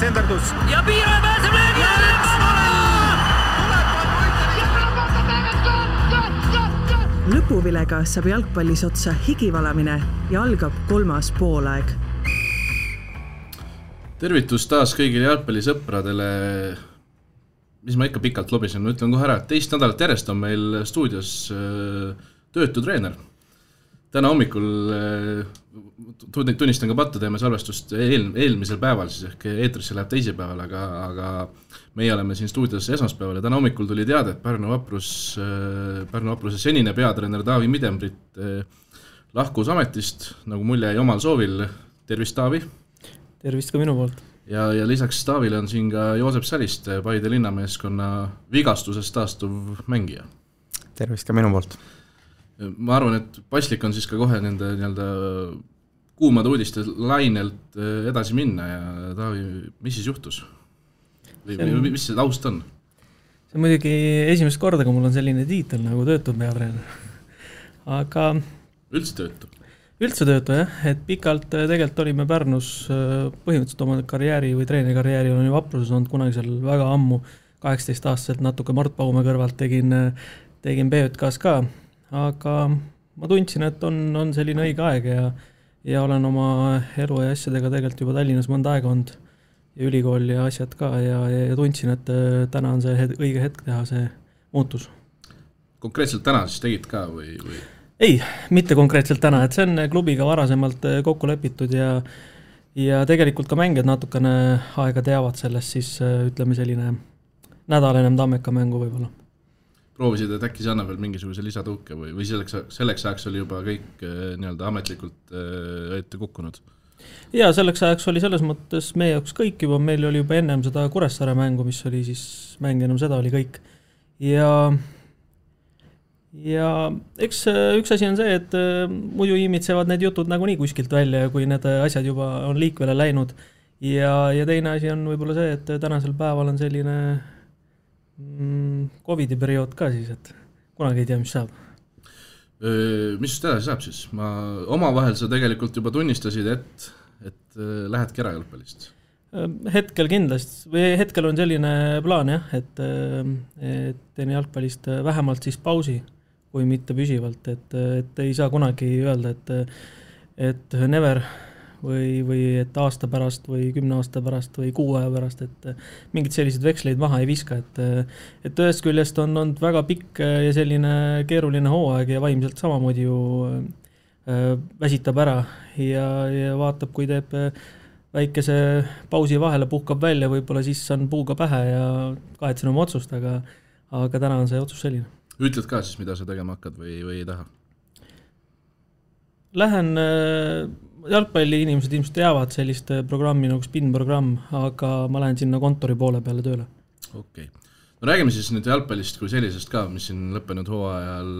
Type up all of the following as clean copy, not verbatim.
tsenderdus. Ja Piiraja pääseb löögi Lõpuvilega saab jalgpallis otsa higivalamine ja algab 3. poolaeg. Tervitus taas kõigile jalgpallisõpradele, mis ma ikka pikalt lobisen, ma ütlen kohe ära, et teist nädalat järjest on meil stuudios töötu treener. Täna hommikul tunnistan ka pattu, teeme salvestust eelmisel päeval, siis ehk eetrisse läheb teisipäeval, aga meie oleme siin stuudios esmaspäeval ja täna hommikul tuli teada, et Pärnu Vapruse senine peatreener Taavi Midembrit lahkus ametist, nagu mulje jäi omal soovil. Tervist, Taavi! Tervist ka minu poolt! Ja lisaks Taavile on siin ka Joosep Saliste, Paide linnameeskonna vigastusest taastuv mängija. Tervist ka minu poolt! Ma arvan, et paslik on siis ka kohe nende kuumade uudiste lainelt edasi minna ja Taavi, mis siis juhtus? Või mis see taust on? See on muidugi esimest korda, kui mul on selline tiitel nagu töötu peatreener. Aga üldse töötu? Üldse töötu, jah. Et pikalt tegelikult olime Pärnus põhimõtteliselt oma karjääri või treenerikarjääri olen ju Vapruses olnud kunagi seal väga ammu, 18 aastaselt natuke Mart Paume kõrvalt tegin BJKs ka. Aga ma tundsin, et on selline õige aeg ja olen oma elu ja asjadega tegelikult juba Tallinnas mõnda aega olnud ja ülikool ja asjad ka ja tundsin, et täna on see õige hetk teha see muutus. Konkreetselt täna siis tegid ka või? Ei, mitte konkreetselt täna, et see on klubiga varasemalt kokku lepitud ja tegelikult ka mängijad natukene aega teavad sellest, siis ütleme selline nädal ennem Tammeka mängu võib-olla. Proovisid, et äkki see annab veel mingisuguse lisatõuke või selleks ajaks oli juba kõik ametlikult ette kukkunud? Ja selleks ajaks oli selles mõttes meie jaoks kõik juba, meil oli juba ennem seda Kuressaare mängu, mis oli siis mäng ennem seda oli kõik. Ja eks üks asi on see, et muidu imitsevad need jutud nagunii kuskilt välja, kui need asjad juba on liikvele läinud. Ja teine asi on võib-olla see, et tänasel päeval on selline Covidi periood ka siis, et kunagi ei tea, mis saab. Mis just edasi saab siis? Omavahel sa tegelikult juba tunnistasid, et lähedki ära jalgpallist? Hetkel kindlasti, või hetkel on selline plaan jah, et teen jalgpallist vähemalt siis pausi, kui mitte püsivalt, et ei saa kunagi öelda, et never või et aasta pärast või 10 aasta pärast või 6 aja pärast, et mingid sellised veksleid maha ei viska, et ühest küljest on olnud väga pikk ja selline keeruline hooaeg ja vaimselt samamoodi ju väsitab ära ja vaatab, kui teeb väikese pausi vahele, puhkab välja, võib-olla siis on puuga pähe ja kahetsen oma otsust, aga täna on see otsus selline. Ütled ka siis, mida sa tegema hakkad või ei taha? Lähen jalgpalli inimesed ilmselt teavad sellist programmi nagu spin-programm, aga ma lähen sinna kontori poole peale tööle. Okei. No räägime siis nüüd jalgpallist kui sellisest ka, mis siin lõppenud hooajal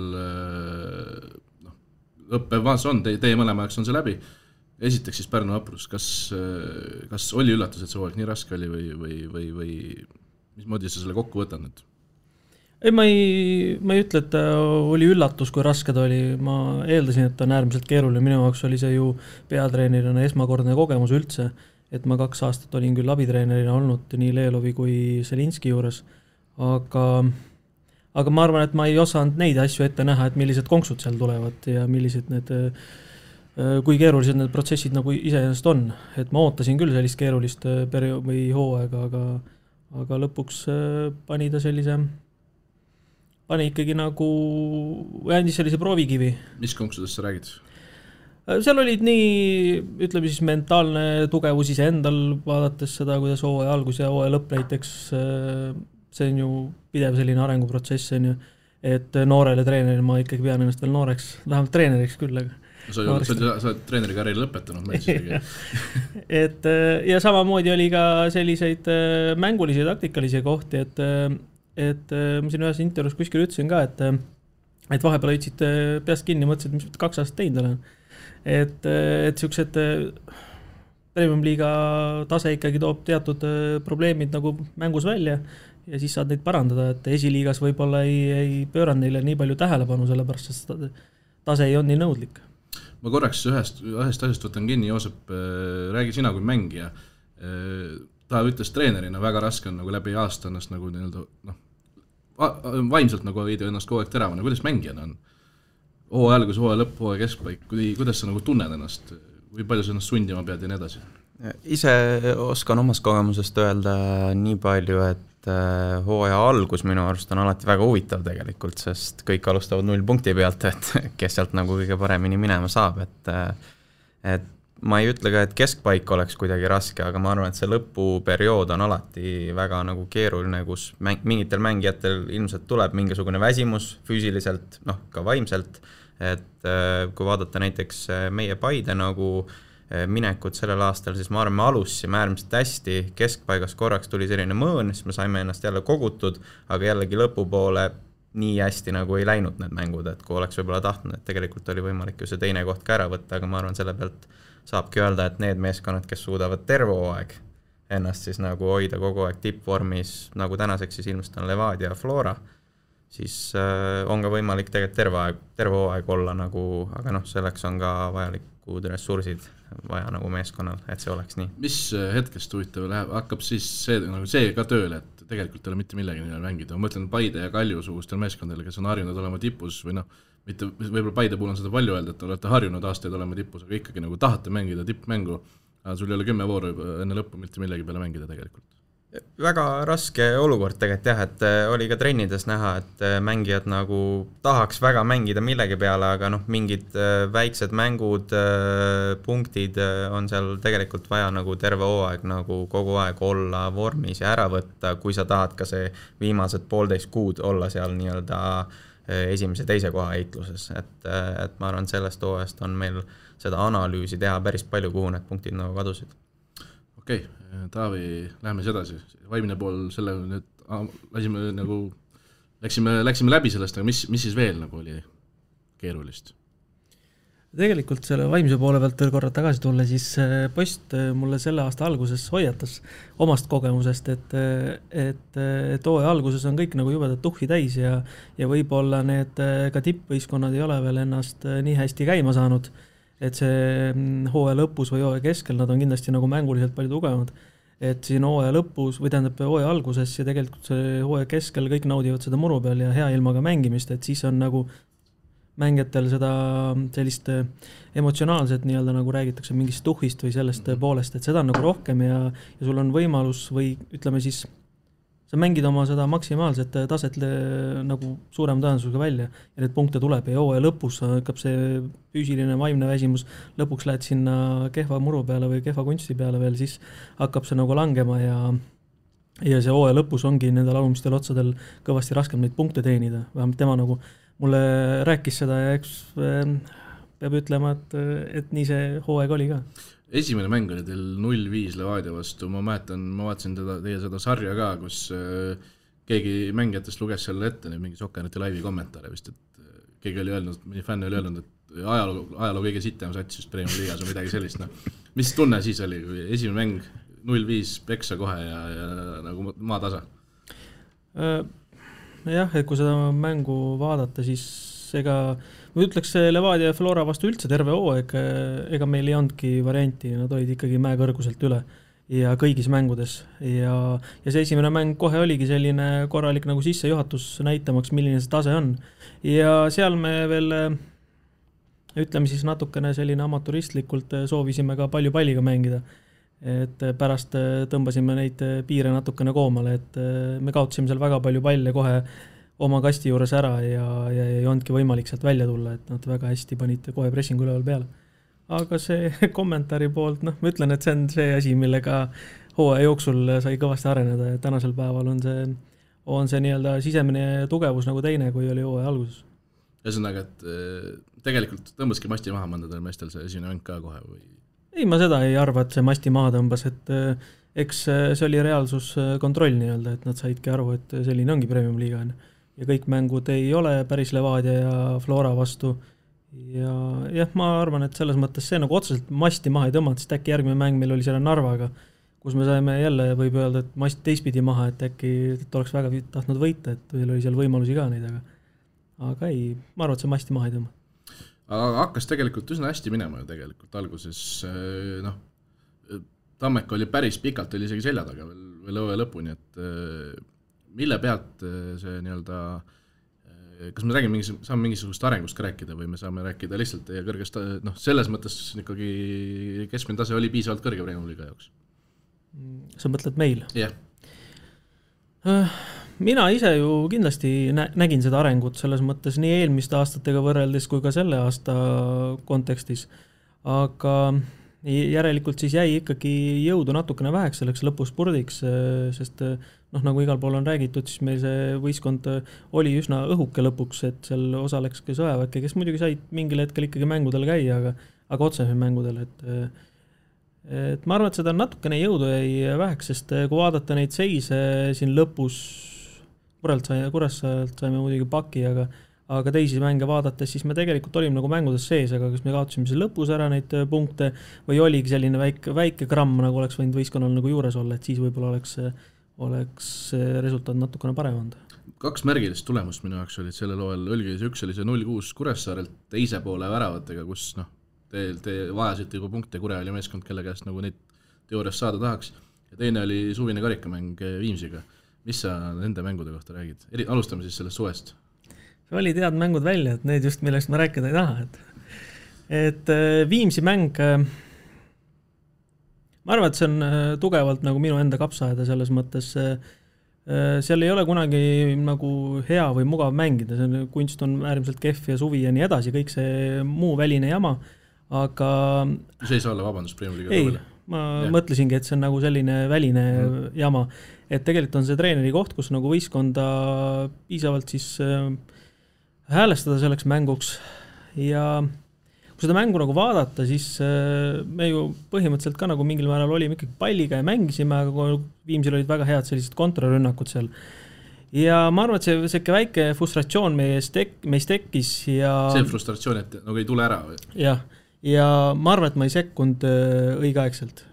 õppevaas on, teie mõlemaks on see läbi. Esiteks siis Pärnu Vaprus, kas oli üllatus, et see hooaeg nii raske oli või mismoodi sa selle kokku võtad nüüd? Ei, ma ei ütle, et oli üllatus, kui raske ta oli. Ma eeldasin, et ta on äärmiselt keeruline. Minu jaoks oli see ju peatreenerina esmakordne kogemus üldse, et ma 2 aastat olin küll abitreenerina olnud nii Leelovi kui Selinski juures, aga ma arvan, et ma ei osanud neid asju ette näha, et millised konksud seal tulevad ja millised kui keerulised need protsessid nagu iseenesest on. Et ma ootasin küll sellist keerulist periood või hooaega, aga lõpuks pani ta pani ikkagi nagu, andis sellise proovikivi. Mis konksudest sa räägid? Seal olid nii, ütleme siis mentaalne tugevus ise endal, vaadates seda, kuidas hooaja algus ja hooaja lõpp näiteks, see on ju pidev selline arenguprotsess, et noorele treeneril ma ikkagi pean ennast veel nooreks, vähemalt treeneriks küll. Sa oled treeneri karjääri lõpetanud, ma isegi. Ja samamoodi oli ka selliseid mängulisi ja taktikalisi kohti, et ma siin ühes intervjuus kuskil ütlesin ka, et vahepeal hoidsid peast kinni, mõtlesid, mis 2 aastat teinud olen. Et sellised Premium-liiga tase ikkagi toob teatud probleemid nagu mängus välja ja siis saad neid parandada, et esiliigas võib-olla ei pööranud neile nii palju tähelepanu, sellepärast et tase ei on nii nõudlik. Ma korraks ühest asjast võtan kinni, Joosep, räägi sina kui mängija. ta ütles treenerina, väga raske on nagu läbi aasta ennast nagu nii-öelda vaimselt nagu hoida ennast kogu aeg teravana, kuidas mängijana on? Hooaja algus, hooaja lõpp, hooaja keskpaik, kuidas sa nagu tunned ennast, või palju sa ennast sundima pead ja nii edasi? Ise oskan omast kogemusest öelda nii palju, et hooaja algus minu arust on alati väga huvitav tegelikult, sest kõik alustavad 0 punkti pealt, et kes sealt nagu kõige paremini minema saab, et ma ei ütle ka, et keskpaik oleks kuidagi raske, aga ma arvan, et see lõpuperiood on alati väga nagu keeruline, kus mingitel mängijatel ilmselt tuleb mingisugune väsimus füüsiliselt, ka vaimselt, et kui vaadata näiteks meie Paide nagu minekut sellel aastal, siis ma arvan, me alusime äärmiselt hästi, keskpaigas korraks tuli selline mõõn, siis me saime ennast jälle kogutud, aga jällegi lõpupoole nii hästi nagu ei läinud need mängud, et kui oleks võib-olla tahtnud, et tegelikult oli võimalik ju see teine koht ka ära võtta, aga ma arvan, selle pealt saabki öelda, et need meeskonnad, kes suudavad terve hooaeg ennast siis nagu hoida kogu aeg tippvormis, nagu tänaseks siis ilmselt on Levadia ja Flora, siis on ka võimalik tegelikult terve hooaeg olla nagu, aga selleks on ka vajalikud ressursid vaja nagu meeskonnal, et see oleks nii. Mis hetkest huvitav läheb, hakkab siis see ka tööle, et tegelikult ei ole mitte millegi neil mängida. Ma mõtlen Paide ja Kalju sugustel meeskondadele, kes on harjunud olema tipus või mitte, võib-olla Paide puhul on seda palju öelda, et olete harjunud aastaid olema tipus, aga ikkagi nagu tahate mängida tippmängu, aga sul ei ole 10 vooru enne lõppu mitte millegi peale mängida tegelikult. Väga raske olukord tegelikult jah, et oli ka trennides näha, et mängijad nagu tahaks väga mängida millegi peale, aga mingid väiksed mängud, punktid on seal tegelikult vaja nagu terve hooaeg nagu kogu aeg olla vormis ja ära võtta, kui sa tahad ka see viimased 1,5 kuud olla seal nii-öelda esimese teise koha heitluses, et ma arvan, sellest hooajast on meil seda analüüsi teha päris palju, kuhu need punktid nagu kadusid. Okei, Taavi, läheme edasi. Vaimne pool selle nüüd läksime läbi sellest, aga mis siis veel nagu oli keerulist? Tegelikult selle vaimse poole pealt veel korra tagasi tulla, siis Post mulle selle aasta alguses hoiatas omast kogemusest, et hooaja alguses on kõik nagu jubedat tuhhi täis ja võib-olla need ka tippvõistkonnad ei ole veel ennast nii hästi käima saanud, et see hooaja lõpus või hooaja keskel nad on kindlasti nagu mänguliselt palju tugevamad. Et siin hooaja lõpus või tähendab hooaja alguses ja tegelikult see hooaja keskel kõik naudivad seda muru peal ja hea ilmaga mängimist, et siis on nagu mängijatel seda sellist emotsionaalset nii-öelda nagu räägitakse mingist tuhhist või sellest poolest, et seda on nagu rohkem ja sul on võimalus või ütleme siis sa mängid oma seda maksimaalset taset nagu suurem tõenäosusega välja ja need punkte tuleb ja hooaja lõpus hakkab see füüsiline vaimne väsimus, lõpuks lähed sinna kehva muru peale või kehva kunsti peale veel, siis hakkab see nagu langema ja see hooaja lõpus ongi nendel alumistel otsadel kõvasti raskem neid punkte teenida, vähemalt tema nagu mulle rääkis seda ja eks peab ütlema, et nii see hooaeg oli ka. Esimene mäng oli teil 0-5 Levadia vastu, ma vaatasin teie seda sarja ka, kus keegi mängijatest luges selle ette mingi Sokkeriti laivi kommentaare vist, et keegi oli öelnud, mõni fänn oli öelnud, et ajaloo kõige sitem sats just Premium Liigas või midagi sellist. Mis tunne siis oli, kui esimene mäng 0-5 peksa kohe ja nagu maatasa? Jah, et kui seda mängu vaadata, siis ma ütleks Levadia ja Flora vastu üldse terve hooaeg, ega meil ei andki varianti, nad olid ikkagi mäekõrguselt üle ja kõigis mängudes ja see esimene mäng kohe oligi selline korralik nagu sissejuhatus näitamaks, milline see tase on ja seal me veel ütleme siis natukene selline amaturistlikult soovisime ka palju palliga mängida, et pärast tõmbasime neid piire natukene koomale, et me kaotasime seal väga palju palle kohe oma kasti juures ära ja ei olnudki võimalik sealt välja tulla, et nad väga hästi panid kohe pressingu üleval peale. Aga see kommentaari poolt, ma ütlen, et see on see asi, millega hooaja jooksul sai kõvasti areneda ja tänasel päeval on see nii-öelda sisemine tugevus nagu teine, kui oli hooaja alguses. Ühesõnaga, et tegelikult tõmbaski masti maha mõndadel meestel see esimene mäng ka kohe või? Ei, ma seda ei arva, et see masti maha tõmbas, et eks see oli reaalsuskontroll nii-öelda, et nad saidki aru, et selline ongi Premium Liiga ja kõik mängud ei ole päris Levadia ja Flora vastu ja jah, ma arvan, et selles mõttes see nagu otseselt masti maha ei tõmmanud, sest äkki järgmine mäng meil oli selle Narvaga, kus me saime jälle, võib öelda, et mast teistpidi maha, et äkki oleks väga tahtnud võita, et meil oli seal võimalusi ka neid, aga ei, ma arvan, et see masti maha ei tõmba. Aga hakkas tegelikult üsna hästi minema ju tegelikult alguses, Tammeka oli päris pikalt, oli isegi selja taga veel õue lõpuni, et mille pealt see nii-öelda, kas me räägime saame mingisugust arengust ka rääkida või me saame rääkida lihtsalt teie kõrgest, selles mõttes ikkagi keskmine tase oli piisavalt kõrge Premiumi liiga jaoks? Sa mõtled meil? Jah. Mina ise ju kindlasti nägin seda arengut selles mõttes nii eelmiste aastatega võrreldes kui ka selle aasta kontekstis, aga järelikult siis jäi ikkagi jõudu natukene väheks selleks lõpuspurdiks, sest nagu igal pool on räägitud, siis meil see võistkond oli üsna õhuke lõpuks, et seal osaleks ka Sõjaväkke, kes muidugi said mingil hetkel ikkagi mängudel käia, aga otseselt mängudel, et ma arvan, et seda natukene jõudu jäi väheks, sest kui vaadata neid seise siin lõpus, Kuressaarelt saime muidugi paki, aga teisi mänge vaadates, siis me tegelikult olime nagu mängudes sees, aga kas me kaotasime see lõpus ära neid punkte või oligi selline väike gramm, nagu oleks võinud võistkonnal nagu juures olla, et siis võib-olla oleks resultaat natukene parem olnud. 2 märgilist tulemust minu jaoks olid sellel hooajal, üks oli see 0-6 Kuressaarelt teise poole väravatega, kus te vajasite juba punkte, Kure oli meeskond, kelle käest nagu neid teoorias saada tahaks, ja teine oli suvine karikamäng Viimsiga. Mis sa nende mängude kohta räägid? Alustame siis sellest suvest. See oli tead mängud välja, et need just, millest ma rääkida ei taha. Et Viimsi mäng, ma arvan, et see on tugevalt nagu minu enda kapsaaeda selles mõttes, seal ei ole kunagi nagu hea või mugav mängida, kunst on äärmiselt kehv ja suvi ja nii edasi, kõik see muu väline jama, aga... See ei saa olla vabandust Premiumi liiga ei, ma mõtlesingi, et see on nagu selline väline jama, et tegelikult on see treeneri koht, kus nagu võistkonda piisavalt siis häälestada selleks mänguks ja kui seda mängu nagu vaadata, siis me ju põhimõtteliselt ka nagu mingil määral olime ikkagi palliga ja mängisime, aga Viimsil olid väga head sellised kontrarünnakud seal. Ja ma arvan, et see väike frustratsioon meist tekkis ja... See frustratsioon, et nagu ei tule ära või? Jah, ja ma arvan, et ma ei sekkunud õigeaegselt.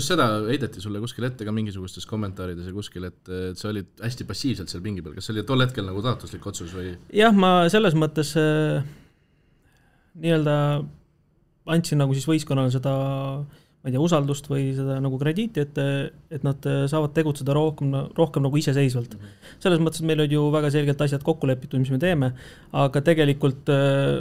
Seda heideti sulle kuskil ette ka mingisugustes kommentaarides ja kuskil, et sa olid hästi passiivselt seal pingi peal. Kas see oli tol hetkel nagu taotluslik otsus või? Jah, ma selles mõttes nii-öelda andsin nagu siis võistkonnale seda, ma ei tea, usaldust või seda nagu krediiti, et nad saavad tegutseda rohkem nagu iseseisvalt. Selles mõttes, et meil olid ju väga selgelt asjad kokku lepitud, mis me teeme, aga tegelikult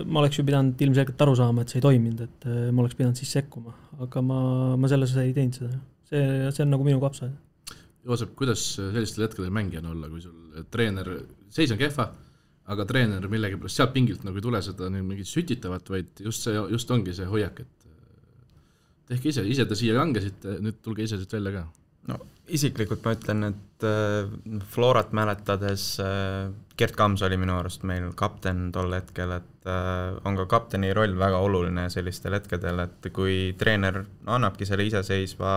ma oleks ju pidanud ilmselgelt aru saama, et see ei toiminud, et ma oleks pidanud siis sekkuma, aga ma selles ei teinud seda. See on nagu minu kapsa. Joosep, kuidas sellistel hetkedel mängijana olla, kui sul treener, seis on kehva, aga treener millegi pärast sealt pingilt nagu ei tule seda mingit sütitavat, vaid just ongi see hoiak, et tehke ise te siia langesite, nüüd tulge ise siit välja ka. No isiklikult ma ütlen, et Florat mäletades Gert Kams oli minu arust meil kapten tol hetkel, et on ka kapteni roll väga oluline sellistel hetkedel, et kui treener annabki selle iseseisva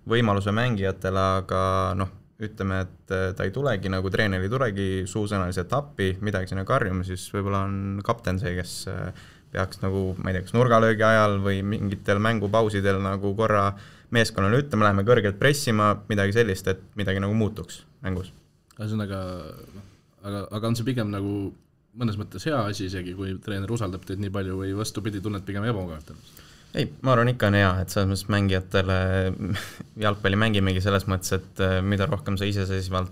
võimaluse mängijatele, aga ütleme, et ta ei tulegi, nagu treener ei tulegi suusõnaliselt appi, midagi sinna karjuma, siis võib-olla on kapten see, kes peaks nagu, ma ei tea, kas nurgalöögi ajal või mingitel mängupausidel nagu korra meeskonnale ütlema, läheme kõrgelt pressima, midagi sellist, et midagi nagu muutuks mängus. Aga on see pigem nagu mõnes mõttes hea asi isegi, kui treener usaldab teid nii palju või vastupidi tunned pigem ebamugavalt? Ei, ma arvan ikka on hea, et selles mõttes mängijatele jalgpalli mängimegi selles mõttes, et mida rohkem sa iseseisvalt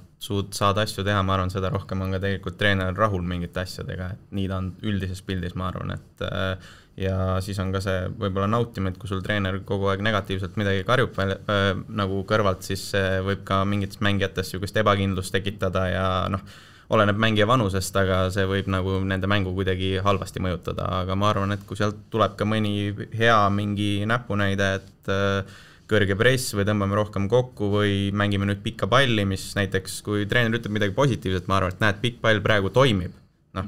saad asju teha, ma arvan, seda rohkem on ka tegelikult treener rahul mingite asjadega, et nii ta on üldises pildis, ma arvan, et ja siis on ka see võib-olla nautima, et kui sul treener kogu aeg negatiivselt midagi karjub nagu kõrvalt, siis võib ka mingites mängijates sugust ebakindlust tekitada ja oleneb mängija vanusest, aga see võib nagu nende mängu kuidagi halvasti mõjutada, aga ma arvan, et kui sealt tuleb ka mõni hea mingi näpunäide, et kõrge press või tõmbame rohkem kokku või mängime nüüd pikka palli, mis näiteks kui treener ütleb midagi positiivset, ma arvan, et näed, pikk pall praegu toimib,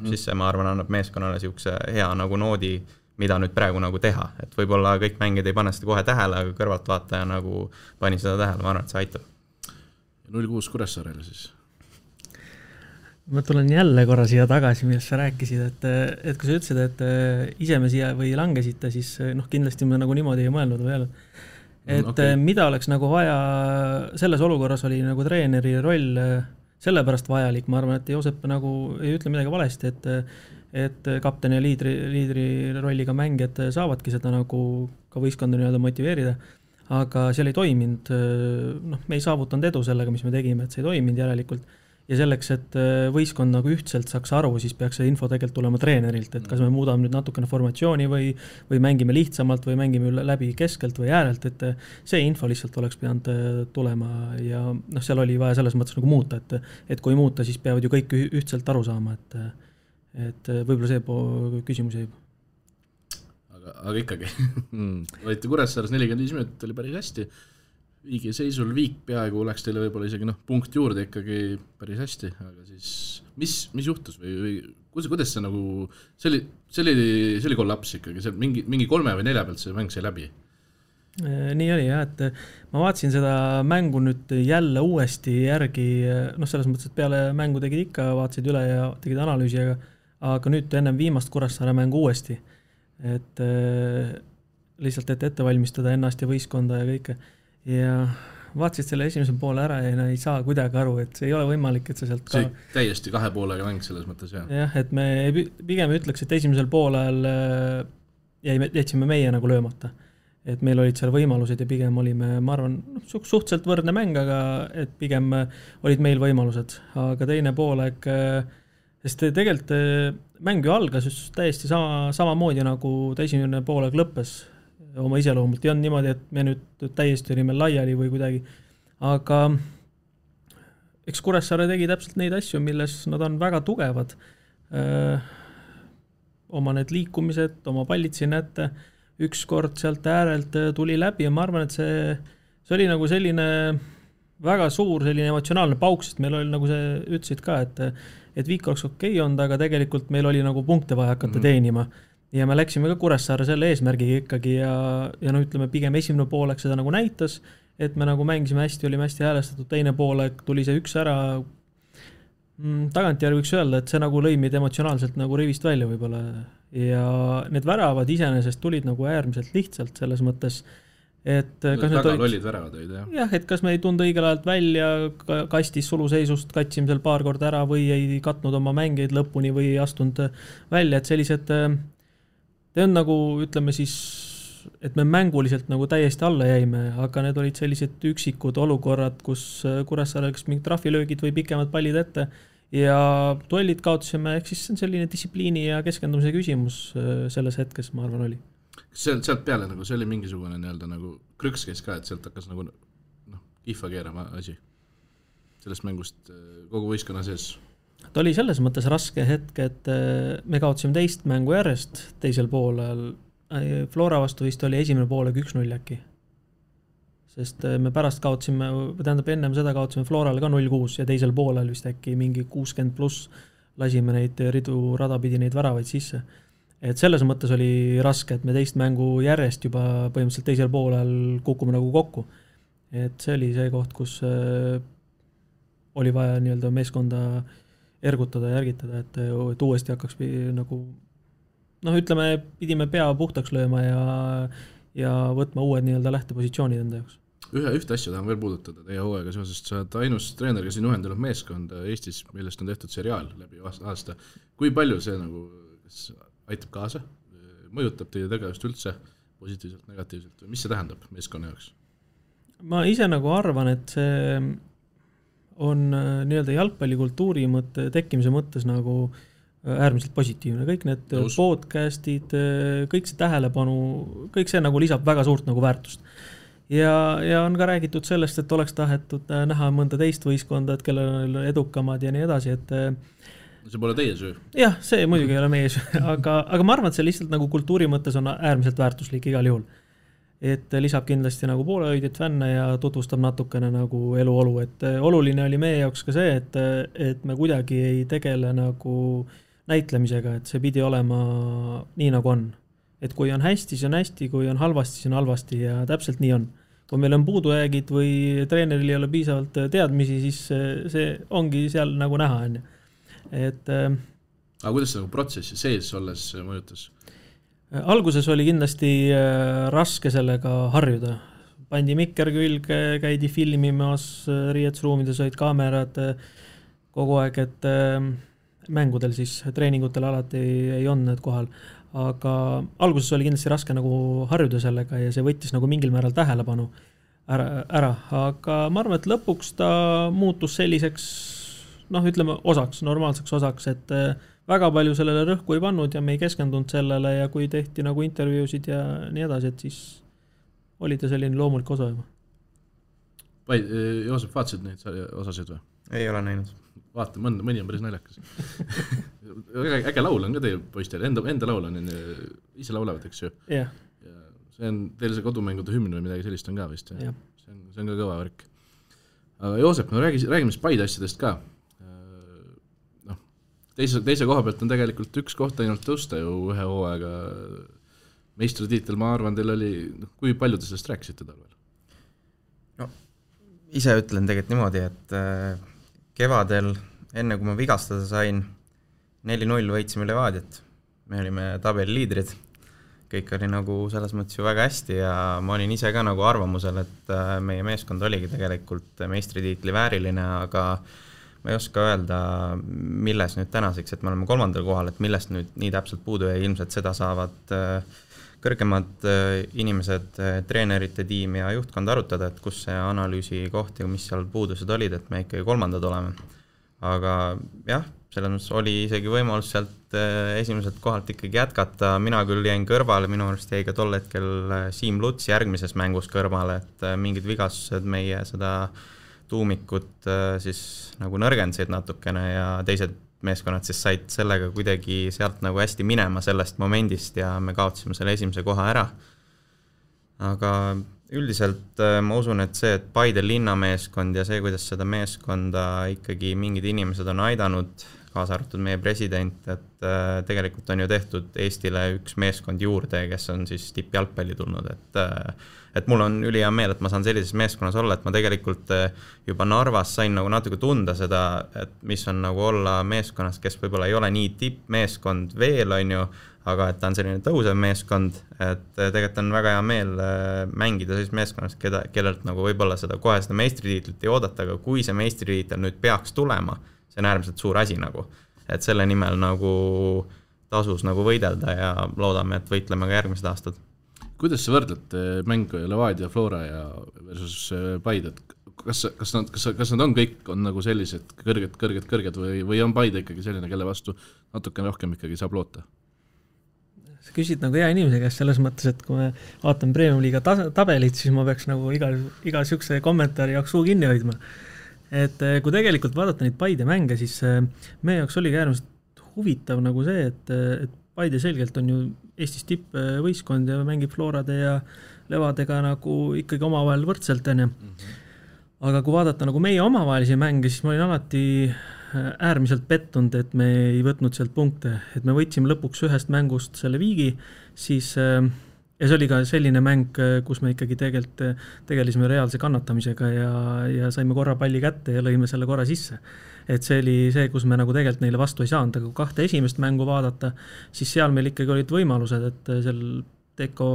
siis see, ma arvan, annab meeskonnale siukse hea nagu noodi, mida nüüd praegu nagu teha, et võib-olla kõik mängid ei pane seda kohe tähele, aga kõrvaltvaataja nagu pani seda tähele, ma arvan, et see aitab. 0-6 Kuressaarele siis? Ma tulen jälle korra siia tagasi, millest sa rääkisid, et kui sa ütlesid, et ise me siia või langesite, siis kindlasti me nagu niimoodi ei mõelnud veel. Et mida oleks nagu vaja, selles olukorras oli nagu treeneri roll sellepärast vajalik, ma arvan, et Joosep nagu ei ütle midagi valesti, et kapten ja liidri rolliga mängijad saavadki seda nagu ka võistkonda nii-öelda motiveerida. aga seal ei toiminud, noh, me ei saavutanud edu sellega, mis me tegime, et see ei toiminud järelikult. Ja selleks, et võistkond nagu ühtselt saaks aru, siis peaks see info tegelikult tulema treenerilt, et kas me muudame nüüd natukene formatsiooni või mängime lihtsamalt või mängime läbi keskelt või äärelt, et see info lihtsalt oleks pidanud tulema ja noh, seal oli vaja selles mõttes nagu muuta, et kui muuta, siis peavad ju kõik ühtselt aru saama, et võib-olla see küsimus jäi. Aga ikkagi, olite Kuressaares 45 minutit, oli päris hästi. Viigi seisul Viik peaaegu oleks teile võib-olla isegi punkt juurde ikkagi päris hästi, aga siis mis juhtus või kuidas see nagu, see oli kollaps ikkagi, see mingi 3 või 4 pealt see mäng sai läbi? Nii oli jah, et ma vaatasin seda mängu nüüd jälle uuesti järgi, noh selles mõttes, et peale mängu tegid ikka, vaatasid üle ja tegid analüüsi, aga nüüd ennem viimast Kuressaare mängu uuesti, et lihtsalt ette valmistada ennast ja võistkonda ja kõike. Ja vaatasid selle esimese poole ära ja ei saa kuidagi aru, et see ei ole võimalik, et see sealt see täiesti 2 poolega mäng selles mõttes, jah. Jah, et me pigem ütleks, et esimesel poolel jätsime meie nagu löömata. Et meil olid seal võimalused ja pigem olime, ma arvan, suhteliselt võrdne mäng, aga et pigem olid meil võimalused. Aga teine poolek, sest tegelikult mäng ju algas just täiesti samamoodi nagu ta esimene poolek lõppes oma iseloomult. Ei on niimoodi, et me nüüd täiesti olime laiali või kuidagi, aga eks Kuressaare tegi täpselt neid asju, milles nad on väga tugevad. Oma need liikumised, oma pallid siin ette, üks kord sealt äärelt tuli läbi ja ma arvan, et see oli nagu selline väga suur selline emotsionaalne pauk, sest meil oli nagu see ütlesid ka, et Viik oleks okei olnud, aga tegelikult meil oli nagu punkte vaja hakata teenima. Ja me läksime ka Kuressaare selle eesmärgiga ikkagi ja no ütleme pigem esimene poolek seda nagu näitas, et me nagu mängisime hästi, olime hästi häälestatud, teine poolek tuli see üks ära, tagantjärgi võiks öelda, et see nagu lõi meid emotsionaalselt nagu rivist välja võib-olla ja need väravad iseenesest tulid nagu äärmiselt lihtsalt selles mõttes, et kas väga lollid väravad olid, jah, et kas me ei tunda õigel ajalt välja, kastis suluseisust, katsime seal paar korda ära või ei katnud oma mängeid lõpuni või ei astunud välja, et sellised see on nagu, ütleme siis, et me mänguliselt nagu täiesti alla jäime, aga need olid sellised üksikud olukorrad, kus Kuressaare läks mingid trahvilöögid või pikemad pallid ette ja duellid kaotasime, ehk siis see on selline distsipliini ja keskendumise küsimus selles hetkes, ma arvan, oli. Sealt peale nagu, see oli mingisugune nagu krüks käis ka, et sealt hakkas nagu kihva keerama asi sellest mängust kogu võistkonna sees? Ta oli selles mõttes raske hetk, et me kaotasime teist mängu järjest teisel poolel. Flora vastu vist oli esimene poolek 1-0 äkki. Sest me pärast kaotasime, tähendab ennem seda kaotasime Florale ka 0-6 ja teisel poolel vist äkki mingi 60+ lasime neid ridu radapidi neid väravaid sisse. Et selles mõttes oli raske, et me teist mängu järjest juba põhimõtteliselt teisel poolel kukume nagu kokku. Et see oli see koht, kus oli vaja nii-öelda meeskonda ergutada ja järgitada, et uuesti hakkaks nagu, ütleme, pidime pea puhtaks lööma ja võtma uued nii-öelda lähtepositsioonid enda jaoks. Ühte asja tahan veel puudutada teie hooaega seoses, sa oled ainus treener, kes on juhendanud meeskonda Eestis, millest on tehtud seriaal läbi aasta. Kui palju see nagu aitab kaasa, mõjutab teie tegevust üldse positiivselt, negatiivselt või mis see tähendab meeskonna jaoks? Ma ise nagu arvan, et see on nii-öelda jalgpallikultuuri tekkimise mõttes nagu äärmiselt positiivne. Kõik need podcastid, kõik see tähelepanu, kõik see nagu lisab väga suurt nagu väärtust. Ja on ka räägitud sellest, et oleks tahetud näha mõnda teist võistkonda, et kellel on edukamad ja nii edasi, et see pole teie süü. Jah, see muidugi ei ole meie süü, aga ma arvan, et see lihtsalt nagu kultuuri mõttes on äärmiselt väärtuslik igal juhul. Et lisab kindlasti nagu poolehoidjat fänne ja tutvustab natukene nagu eluolu, et oluline oli meie jaoks ka see, et me kuidagi ei tegele nagu näitlemisega, et see pidi olema nii nagu on. Et kui on hästi, siis on hästi, kui on halvasti, siis on halvasti ja täpselt nii on. Kui meil on puudujäägid või treeneril ei ole piisavalt teadmisi, siis see ongi seal nagu näha. Aga kuidas see nagu protsessi sees olles mõjutas? Alguses oli kindlasti raske sellega harjuda. Pandi mikker külge, käidi filmimas, riietusruumides olid kaamerad kogu aeg, et mängudel siis, treeningutel alati ei olnud need kohal. aga alguses oli kindlasti raske nagu harjuda sellega ja see võttis nagu mingil määral tähelepanu ära, aga ma arvan, et lõpuks ta muutus selliseks, ütleme normaalseks osaks, et väga palju sellele rõhku ei pannud ja me ei keskendunud sellele ja kui tehti nagu intervjuusid ja nii edasi, et siis oli ta selline loomulik osa juba. Joosep, vaatasid neid osasid või? Ei ole näinud. Vaata, mõni on päris naljakas. Äge laul on ka teil poistel, enda laul on, ise laulavad, eks ju? Jah. See on teil see kodumängude hümn või midagi sellist on ka vist? See on ka kõva värk. Aga Joosep, räägime siis Paide asjadest ka. Teise koha pealt on tegelikult üks koht ainult tõusta ju ühe hooaega. Meistritiitel, ma arvan, teil oli, kui palju te sellest rääkisite talvel? Ise ütlen tegelikult niimoodi, et kevadel, enne kui ma vigastada sain, 4-0 võitsime Levadiat. Me olime tabeli liidrid. Kõik oli nagu selles mõttes ju väga hästi ja ma olin ise ka nagu arvamusel, et meie meeskond oligi tegelikult meistritiitli vääriline, aga ma ei oska öelda, milles nüüd tänaseks, et me oleme 3. kohal, et millest nüüd nii täpselt puudu ja ilmselt seda saavad kõrgemad inimesed, treenerite tiim ja juhtkond arutada, et kus see analüüsi koht ja mis seal puudused olid, et me ikkagi 3. oleme. Aga jah, selles mõttes oli isegi võimalus sealt esimeselt kohalt ikkagi jätkata, mina küll jäin kõrvale, minu arust jäi ka tol hetkel Siim Luts järgmises mängus kõrvale, et mingid vigastused meie seda tuumikut siis nagu nõrgendasid natukene ja teised meeskonnad siis said sellega kuidagi sealt nagu hästi minema sellest momendist ja me kaotasime selle esimese koha ära. Aga üldiselt ma usun, et see, et Paide linnameeskond ja see, kuidas seda meeskonda ikkagi mingid inimesed on aidanud, kaasa arvatud meie president, et tegelikult on ju tehtud Eestile üks meeskond juurde, kes on siis tippjalgpalli tulnud, et mul on ülihea meel, et ma saan sellises meeskonnas olla, et ma tegelikult juba Narvas sain nagu natuke tunda seda, et mis on nagu olla meeskonnas, kes võib-olla ei ole nii tippmeeskond veel, on ju, aga et ta on selline tõusev meeskond, et tegelikult on väga hea meel mängida sellises meeskonnas, kellelt nagu võib-olla kohe seda meistritiitlit ei oodata, aga kui see meistritiitel nüüd peaks tulema, see on äärmiselt suur asi nagu, et selle nimel nagu tasus nagu võidelda ja loodame, et võitleme ka järgmised aastad. Kuidas sa võrdled mängu Levadia, Flora ja versus Paide? Kas nad on kõik on nagu sellised kõrged või on Paide ikkagi selline, kelle vastu natuke rohkem ikkagi saab loota? Sa küsid nagu hea inimese käest selles mõttes, et kui me vaatame Premium Liiga tabelit, siis ma peaks nagu iga sükse kommentaari jaoks suu kinni hoidma. Et kui tegelikult vaadata neid Paide mänge, siis meie jaoks oli äärmiselt huvitav nagu see, et Paide selgelt on ju Eestis tippvõistkond ja mängib Florade ja Levadega nagu ikkagi omavahel võrdselt enne. Aga kui vaadata nagu meie omavahelisi mänge, siis ma olin alati äärmiselt pettunud, et me ei võtnud sealt punkte, et me võtsime lõpuks ühest mängust selle viigi, siis ja see oli ka selline mäng, kus me ikkagi tegelisime reaalse kannatamisega ja saime korra palli kätte ja lõime selle korra sisse. Et see oli see, kus me nagu tegelikult neile vastu ei saanud, aga kui 2 esimest mängu vaadata, siis seal meil ikkagi olid võimalused, et seal Teko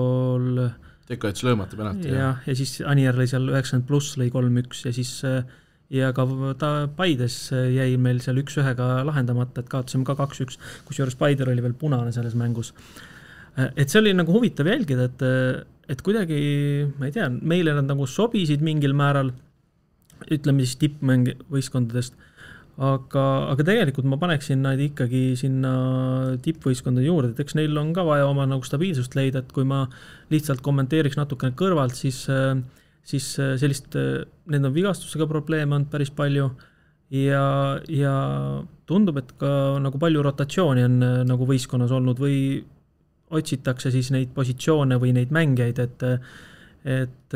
jättis löömata penalti. Ja siis Anier lõi seal 90+ lõi 3-1 ja siis ja ka Paides jäi meil seal 1-1 lahendamata, et kaotasime ka 2-1, kusjuures Paider oli veel punane selles mängus. Et see oli nagu huvitav jälgida, et kuidagi, ma ei tea, meile nad nagu sobisid mingil määral, ütleme siis tippmäng võistkondadest, aga tegelikult ma paneksin nad ikkagi sinna tippvõistkondade juurde, et eks neil on ka vaja oma nagu stabiilsust leida, et kui ma lihtsalt kommenteeriks natukene kõrvalt, siis sellist, need on vigastusega probleeme on päris palju ja tundub, et ka nagu palju rotatsiooni on nagu võistkonnas olnud või otsitakse siis neid positsioone või neid mängijaid, et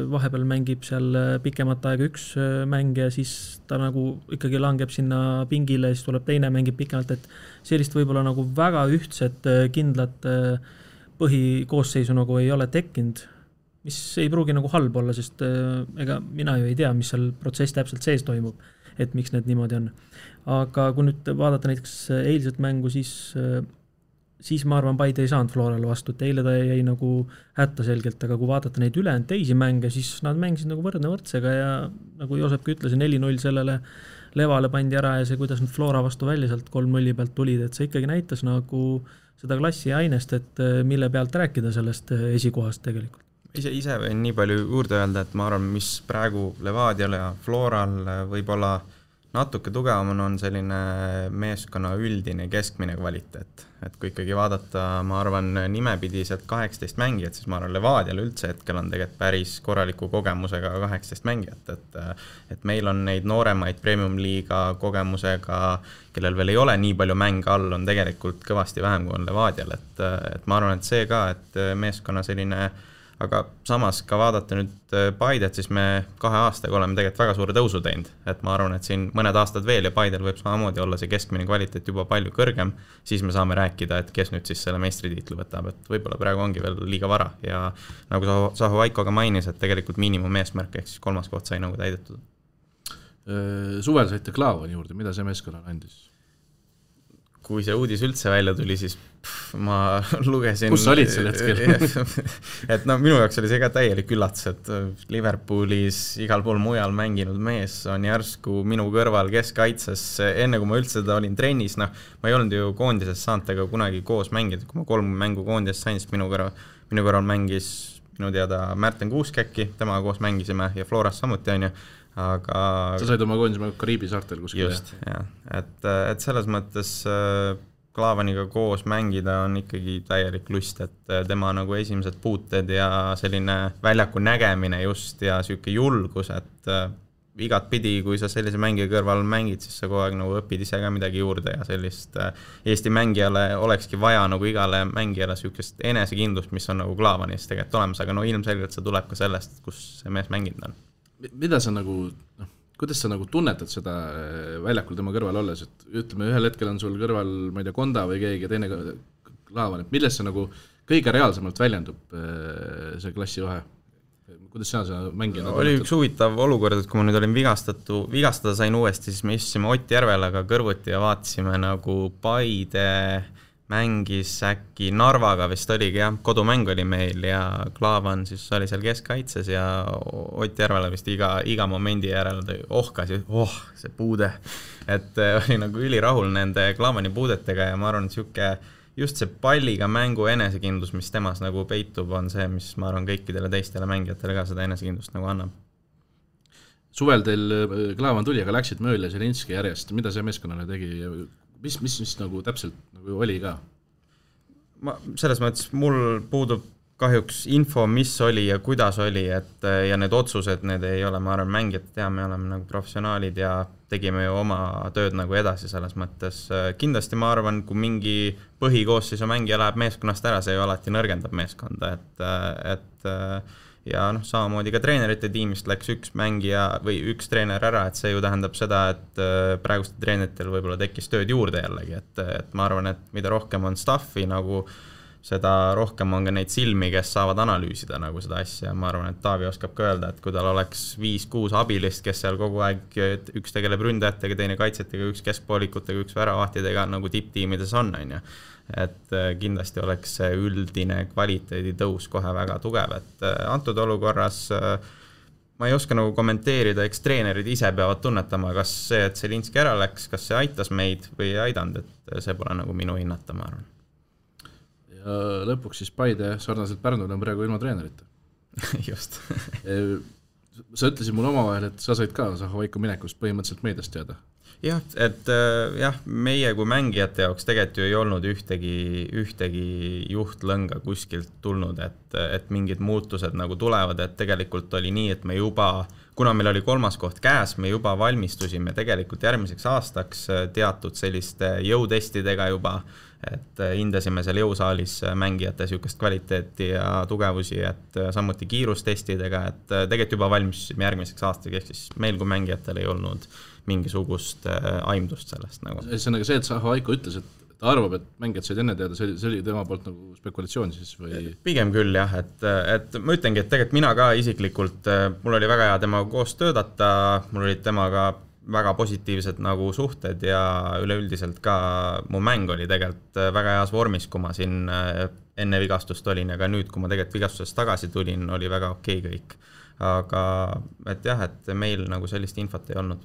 vahepeal mängib seal pikemat aega üks mängija, siis ta nagu ikkagi langeb sinna pingile, siis tuleb teine mängib pikemalt, et sellist võib-olla nagu väga ühtset kindlat põhikoosseisu nagu ei ole tekkinud, mis ei pruugi nagu halb olla, sest ega mina ju ei tea, mis seal protsess täpselt sees toimub, et miks need niimoodi on. Aga kui nüüd vaadata näiteks eilset mängu, siis siis ma arvan, Paide ei saanud Florale vastu, et eile ta jäi nagu hätta selgelt, aga kui vaadata neid ülejäänud teisi mänge, siis nad mängisid nagu võrdne võrdsega ja nagu Joosepki ütles, 4-0 sellele Levale pandi ära ja see, kuidas nüüd Flora vastu välja sealt 3-0 pealt tulid, et see ikkagi näitas nagu seda klassi ainest, et mille pealt rääkida sellest esikohast tegelikult. Ise võin nii palju juurde öelda, et ma arvan, mis praegu Levadial ja Floral võib-olla natuke tugevam on selline meeskonna üldine keskmine kvaliteet. Et kui ikkagi vaadata, ma arvan, nimepidiselt 18 mängijat, siis ma arvan, Levadial üldse hetkel on tegelikult päris korraliku kogemusega 18 mängijat. Et meil on neid nooremaid premium-liiga kogemusega, kellel veel ei ole nii palju mänge all, on tegelikult kõvasti vähem kui on Levadial. Et ma arvan, et see ka, et meeskonna selline, aga samas ka vaadata nüüd Paidet, siis me 2 aastaga oleme tegelikult väga suure tõusu teinud, et ma arvan, et siin mõned aastad veel ja Paidel võib samamoodi olla see keskmine kvaliteet juba palju kõrgem, siis me saame rääkida, et kes nüüd siis selle meistritiitlu võtab, et võib-olla praegu ongi veel liiga vara ja nagu Saho Vaiko ka mainis, et tegelikult miinimum eesmärk ehk siis 3. koht sai nagu täidetud. Suvel saite Klaavani juurde, mida see meeskonnale andis? Kui see uudis üldse välja tuli, siis ma lugesin... Kus sa olid sel hetkel? et no minu jaoks oli see ka täielik üllatus, et Liverpoolis igal pool mujal mänginud mees on järsku minu kõrval keskkaitses. Enne kui ma üldse seda olin trennis, ma ei olnud ju koondises saanud tega kunagi koos mängida. Kui ma 3 mängu koondises sain, siis minu kõrval mängis minu teada Märten Kuuskäkki, temaga koos mängisime ja Floras samuti on ju. Aga... Sa said oma koondise Kariibi saartel kuskil. Just, jah. Et selles mõttes Klaavaniga koos mängida on ikkagi täielik lust, et tema nagu esimesed puuted ja selline väljaku nägemine just ja selline julgus, et igat pidi, kui sa sellise mängija kõrval mängid, siis sa kogu aeg nagu õpid ise ka midagi juurde ja sellist Eesti mängijale olekski vaja nagu igale mängijale sellist enesekindlust, mis on nagu Klaavanis tegelikult olemas, aga no ilmselgelt see tuleb ka sellest, kus see mees mänginud on. Mida sa nagu, kuidas sa nagu tunnetad seda väljakul tema kõrval olles, et ütleme, ühel hetkel on sul kõrval, ma ei tea, Konda või keegi teine Klaavan, et millest see nagu kõige reaalsemalt väljendub see klassi vahe? Kuidas sa mängida? Oli üks huvitav olukord, et kui ma nüüd olin vigastada sain uuesti, siis me istusime Ott Järvelaga kõrvuti ja vaatasime nagu Paide mängis äkki Narvaga vist oligi, jah, kodumäng oli meil ja Klaavan siis oli seal keskkaitses ja Ott Järvela vist iga momendi järel ohkas ja see puude, et oli nagu ülirahul nende Klaavani puudetega ja ma arvan, et just see palliga mängu enesekindlus, mis temas nagu peitub, on see, mis ma arvan kõikidele teistele mängijatele ka seda enesekindlust nagu annab. Suvel teil Klaavan tuli, aga läksid Mööl ja Zelinski järjest, mida see meeskonnale tegi? Mis nagu täpselt nagu oli ka? Selles mõttes mul puudub kahjuks info, mis oli ja kuidas oli, et ja need otsused, need ei ole, ma arvan, mängijad tea, me oleme nagu professionaalid ja tegime ju oma tööd nagu edasi selles mõttes. Kindlasti ma arvan, kui mingi põhikoosseisu mängija läheb meeskonnast ära, see ju alati nõrgendab meeskonda, et ja samamoodi ka treenerite tiimist läks üks mängija või üks treener ära, et see ju tähendab seda, et praegustel treeneritel võib-olla tekkis tööd juurde jällegi, et ma arvan, et mida rohkem on staffi, nagu seda rohkem on ka neid silmi, kes saavad analüüsida nagu seda asja. Ma arvan, et Taavi oskab ka öelda, et kui tal oleks 5-6 abilist, kes seal kogu aeg, üks tegeleb ründajatega, teine kaitsetega, üks keskpoolikutega, üks väravahtidega, nagu tipptiimides on ju. Et kindlasti oleks see üldine kvaliteedi tõus kohe väga tugev, et antud olukorras ma ei oska nagu kommenteerida, eks treenerid ise peavad tunnetama, kas see, et Zelinski ära läks, kas see aitas meid või ei aidanud, et see pole nagu minu hinnata, ma arvan. Ja lõpuks siis Paide sarnaselt Pärnul on praegu ilma treenerita. Just. Sa ütlesid mul omavahel, et sa said ka Saho Vaiko minekust põhimõtteliselt meediast teada. Jah, et meie kui mängijate jaoks tegelikult ju ei olnud ühtegi juhtlõnga kuskilt tulnud, et mingid muutused nagu tulevad, et tegelikult oli nii, et me juba, kuna meil oli 3. koht käes, me juba valmistusime tegelikult järgmiseks aastaks teatud selliste jõutestidega juba, et hindasime seal jõusaalis mängijate sükest kvaliteeti ja tugevusi, et samuti kiirustestidega, et tegelikult juba valmistusime järgmiseks aastaks, ehk siis meil kui mängijatel ei olnud mingisugust aimdust sellest nagu. See on aga see, et Saho Vaiko ütles, et ta arvab, et mängijad said enne teada, see oli tema poolt nagu spekulatsioon siis või? Pigem küll jah, et ma ütlengi, et tegelikult mina ka isiklikult, mul oli väga hea temaga koos töötada, mul olid temaga väga positiivsed nagu suhted ja üleüldiselt ka mu mäng oli tegelikult väga heas vormis, kui ma siin enne vigastust olin ja ka nüüd, kui ma tegelikult vigastusest tagasi tulin, oli väga okei kõik. Aga et jah, et meil nagu sellist infot ei olnud.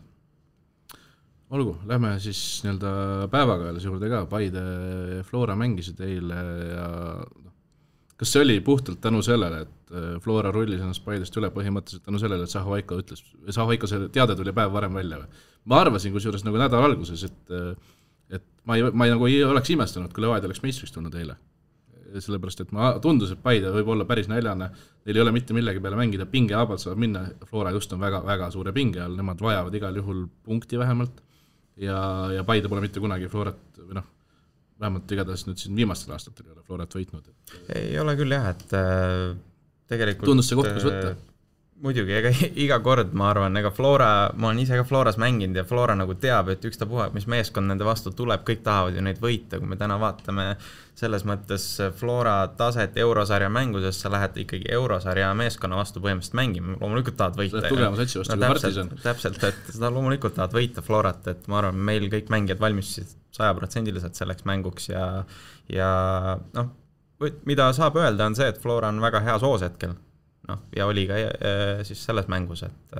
Olgu, lähme siis nii-öelda päevakajalise juurde ka, Paide Flora mängisid eile ja kas see oli puhtalt tänu sellele, et Flora rullis ennast Paidest üle põhimõtteliselt tänu sellele, et Saho-Vaiko see teade tuli päev varem välja või? Ma arvasin kusjuures nagu nädal alguses, et ma ei nagu ei oleks imestanud, kui Levadia oleks meistriks tulnud eile. Sellepärast, et ma tundus, et Paide võib olla päris näljane, neil ei ole mitte millegi peale mängida, pinge abalt saab minna, Flora just on väga, väga suure pinge all, nemad vajavad igal juhul punkti vähemalt ja Paide pole mitte kunagi Florat, või noh, vähemalt igatahes nüüd siin viimastel aastatel ei ole Florat võitnud. Ei ole küll jah, et tegelikult tundus see koht, kus võtta? Muidugi, iga kord ma arvan, ma olen ise ka Floras mänginud ja Flora nagu teab, et ükstapuha, mis meeskond nende vastu tuleb, kõik tahavad ju neid võita, kui me täna vaatame selles mõttes Flora taset eurosarja mänguses, sa lähed ikkagi eurosarja meeskonna vastu põhimõtteliselt mängima, loomulikult tahad võita. Tugeva satsi vastu kui Partisan. Täpselt, et seda loomulikult tahad võita Florat, et ma arvan, meil kõik mängijad valmistusid 100% selleks mänguks ja noh, mida saab öelda on see, et Flora on väga hea soos hetkel. Ja oli ka siis selles mängus, et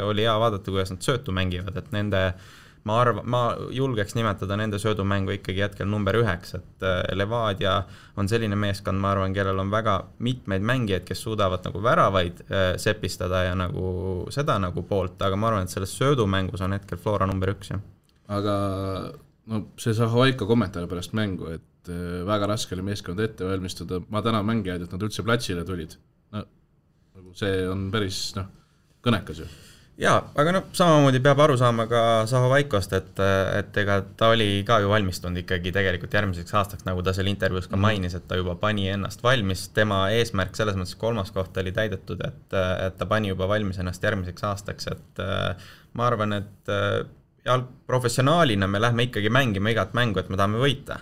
oli hea vaadata, kuidas nad söötu mängivad, et ma julgeks nimetada nende söödumängu ikkagi hetkel number 9, et Levadia on selline meeskond, ma arvan, kellel on väga mitmeid mängijaid, kes suudavad nagu väravaid sepistada ja nagu seda nagu poolt, aga ma arvan, et selles söödumängus on hetkel Flora number 1. Aga no see Saho-Vaiko kommentaar pärast mängu, et väga raske oli meeskond ette valmistada, ma tänan mängijaid, et nad üldse platsile tulid. See on päris kõnekas ju. Jaa, aga samamoodi peab aru saama ka Saho-Vaikost, et ega ta oli ka ju valmistunud ikkagi tegelikult järgmiseks aastaks, nagu ta seal intervjuus ka mainis, et ta juba pani ennast valmis, tema eesmärk selles mõttes 3. koht oli täidetud, et ta pani juba valmis ennast järgmiseks aastaks, et ma arvan, et professionaalina me lähme ikkagi mängima igat mängu, et me tahame võita.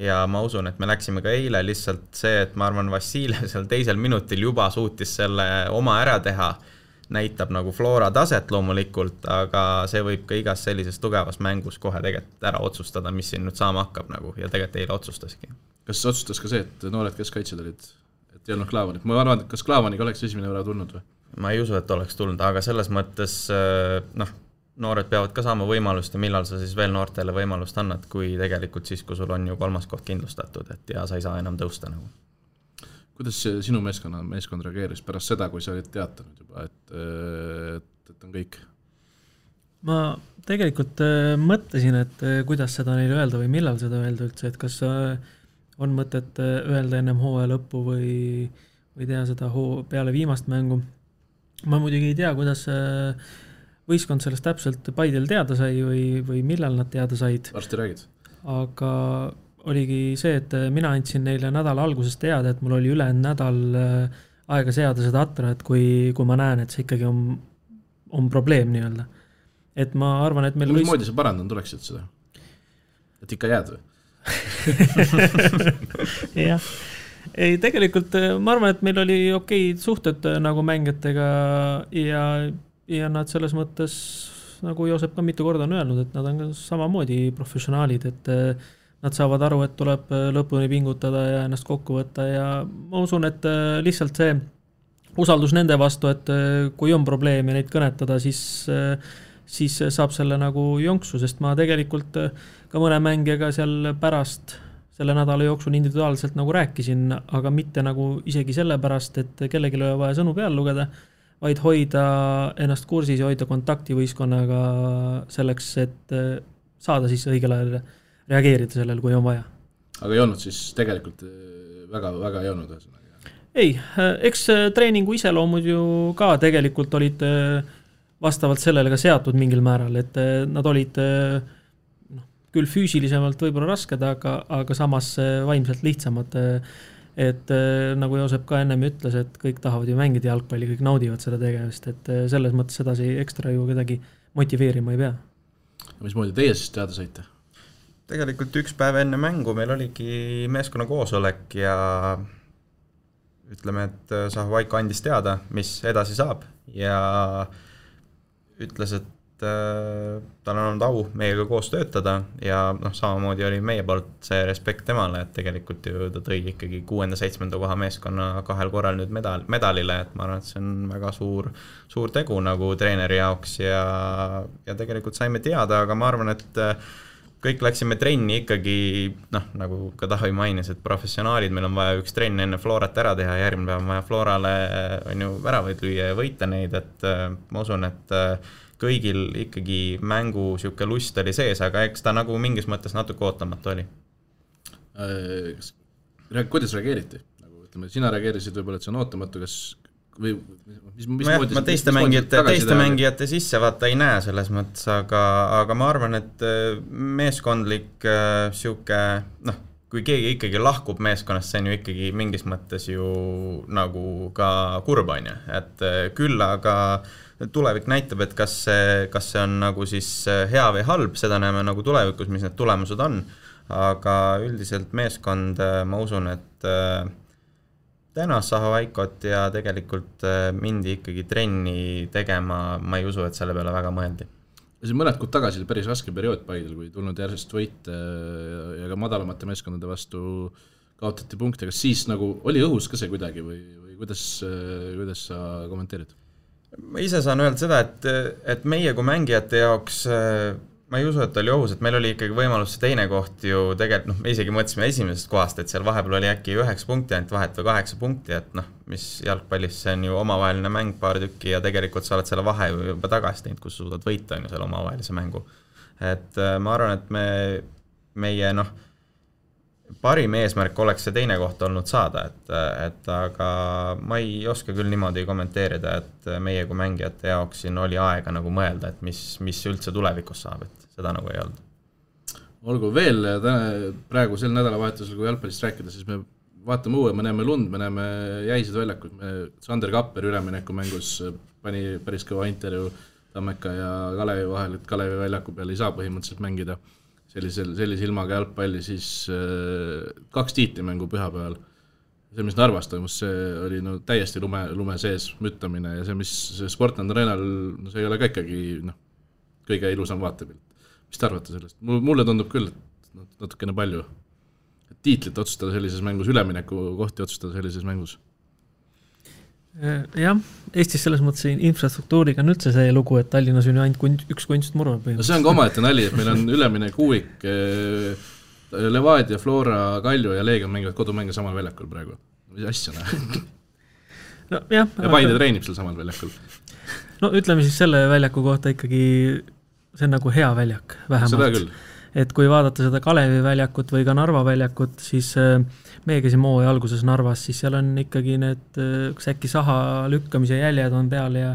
Ja ma usun, et me läksime ka eile lihtsalt see, et ma arvan, Vassiljev seal teisel minutil juba suutis selle oma ära teha, näitab nagu Flora taset loomulikult, aga see võib ka igas sellises tugevas mängus kohe tegelikult ära otsustada, mis siin nüüd saama hakkab nagu, ja tegelikult eile otsustaski. Kas otsustas ka see, et noored keskkaitsjad olid, et ei olnud Klaavanit? Ma arvan, et kas Klaavaniga oleks esimene võra tulnud või? Ma ei usu, et oleks tulnud, aga selles mõttes noored peavad ka saama võimalust ja millal sa siis veel noortele võimalust annad, kui tegelikult siis, kui sul on ju 3. koht kindlustatud, et ja sa ei saa enam tõusta nagu. Kuidas sinu meeskond reageeris pärast seda, kui sa olid teatanud juba, et on kõik? Ma tegelikult mõtlesin, et kuidas seda neile öelda või millal seda öelda üldse, et kas on mõtet öelda ennem hooaja lõppu või teha seda peale viimast mängu. Ma muidugi ei tea, kuidas võistkond sellest täpselt Paidel teada sai või millal nad teada said. Varsti räägid. Aga oligi see, et mina andsin neile nädala alguses teada, et mul oli ülejäänud nädal aega seada seda atra, et kui ma näen, et see ikkagi on probleem nii-öelda. Et ma arvan, et meil moodi sa parandanud oleksid seda? Et ikka jääd või? Jah. Ei, tegelikult ma arvan, et meil oli okei suhted nagu mängijatega ja nad selles mõttes, nagu Joosep ka mitu korda on öelnud, et nad on ka samamoodi professionaalid, et nad saavad aru, et tuleb lõpuni pingutada ja ennast kokku võtta ja ma usun, et lihtsalt see usaldus nende vastu, et kui on probleem ja neid kõnetada, siis saab selle nagu jonksu, sest ma tegelikult ka mõne mängijaga seal pärast selle nädala jooksul individuaalselt nagu rääkisin, aga mitte nagu isegi sellepärast, et kellelgi ei ole vaja sõnu peal lugeda, vaid hoida ennast kursis ja hoida kontakti võistkonnaga selleks, et saada siis õigel ajal reageerida sellel, kui on vaja. Aga ei olnud siis tegelikult väga, väga ei olnud? Ei, eks treeningu iseloomud ju ka tegelikult olid vastavalt sellele ka seatud mingil määral, et nad olid küll füüsilisemalt võib-olla rasked, aga samas vaimselt lihtsamad. Et nagu Joosep ka ennem ütles, et kõik tahavad ju mängida jalgpalli, kõik naudivad seda tegevust, et selles mõttes sedasi ekstra ju kedagi motiveerima ei pea. Mismoodi teie siis teada saite? Tegelikult üks päev enne mängu meil oligi meeskonna koosolek ja ütleme, et Saho-Vaiko andis teada, mis edasi saab ja ütles, et tal on olnud au meiega koos töötada ja samamoodi oli meie poolt see respekt temale, et tegelikult ju ta tõi ikkagi 6.-7. koha meeskonna 2 korral nüüd medalile, et ma arvan, et see on väga suur tegu nagu treeneri jaoks ja tegelikult saime teada, aga ma arvan, et kõik läksime trenni ikkagi, nagu ka Tavi mainis, et professionaalid, meil on vaja üks trenn enne Florat ära teha, järgmine päev on vaja Florale väravaid lüüa ja võita neid, et ma usun, et kõigil ikkagi mängu siuke lust oli sees, aga eks ta nagu mingis mõttes natuke ootamatu oli. Kuidas reageeriti? Ütleme, sina reageerisid võib-olla, et see on ootamatu, kas või ma teiste mängijate sisse vaata ei näe selles mõttes, aga ma arvan, et meeskondlik siuke, kui keegi ikkagi lahkub meeskonnast, see on ju ikkagi mingis mõttes ju nagu ka kurb on ju, et küll aga tulevik näitab, et kas see on nagu siis hea või halb, seda näeme nagu tulevikus, mis need tulemused on, aga üldiselt meeskond, ma usun, et tänas Sahovaikot ja tegelikult mindi ikkagi trenni tegema, ma ei usu, et selle peale väga mõeldi. See mõned kuud tagasi oli päris raske periood Paidel, kui tulnud järjest võite ja ka madalamate meeskondade vastu kaotati punkte, kas siis nagu oli õhus ka see kuidagi või kuidas sa kommenteerid? Ma ise saan öelda seda, et meie kui mängijate jaoks ma ei usu, et oli ohus, et meil oli ikkagi võimalus see teine koht ju tegelikult, me isegi mõtlesime esimesest kohast, et seal vahepeal oli äkki 9 punkti ainult vahet või 8 punkti, et mis jalgpallis see on ju omavaheline mäng paar tükki ja tegelikult sa oled selle vahe juba tagasi teinud, kus suudad võita on ju selle omavahelise mängu. Et ma arvan, et meie parim eesmärk oleks see teine koht olnud saada, et aga ma ei oska küll niimoodi kommenteerida, et meie kui mängijate jaoks siin oli aega nagu mõelda, et mis üldse tulevikus saab, et seda nagu ei olnud. Olgu veel, praegu sel nädalavahetusel, kui jalgpallist rääkida, siis me vaatame uue, me näeme lund, me näeme jäised väljakud, Sander Kapper ülemineku mängus pani päris kõva intervjuu Tammeka ja Kalevi vahel, et Kalevi väljaku peal ei saa põhimõtteliselt mängida sellise ilmaga jalgpalli, siis 2 tiitlimängu pühapäeval. See, mis Narvas toimus, see oli täiesti lume sees müttamine ja see, mis Sportland Arenal, see ei ole ka ikkagi kõige ilusam vaatepilt. Mis te arvate sellest? Mulle tundub küll, et natukene palju. Et tiitlit otsustada sellises mängus, ülemineku kohti otsustada sellises mängus. Jah, Eestis selles mõttes infrastruktuuriga on üldse see lugu, et Tallinnas on ju ainult üks kunstmurva. No see on ka omaette nali, et meil on üleminek Uuvik, Levadia, Flora, Kalju ja Leegion mängivad kodumänge samal väljakul praegu. Mis asja näe? Ja Paide treenib seal samal väljakul. No ütleme siis selle väljaku kohta ikkagi, see on nagu hea väljak vähemalt. Seda küll. Et kui vaadata seda Kalevi väljakut või ka Narva väljakut, siis meie käisime hooaja alguses Narvas, siis seal on ikkagi need äkki saha lükkamise jäljed on peal ja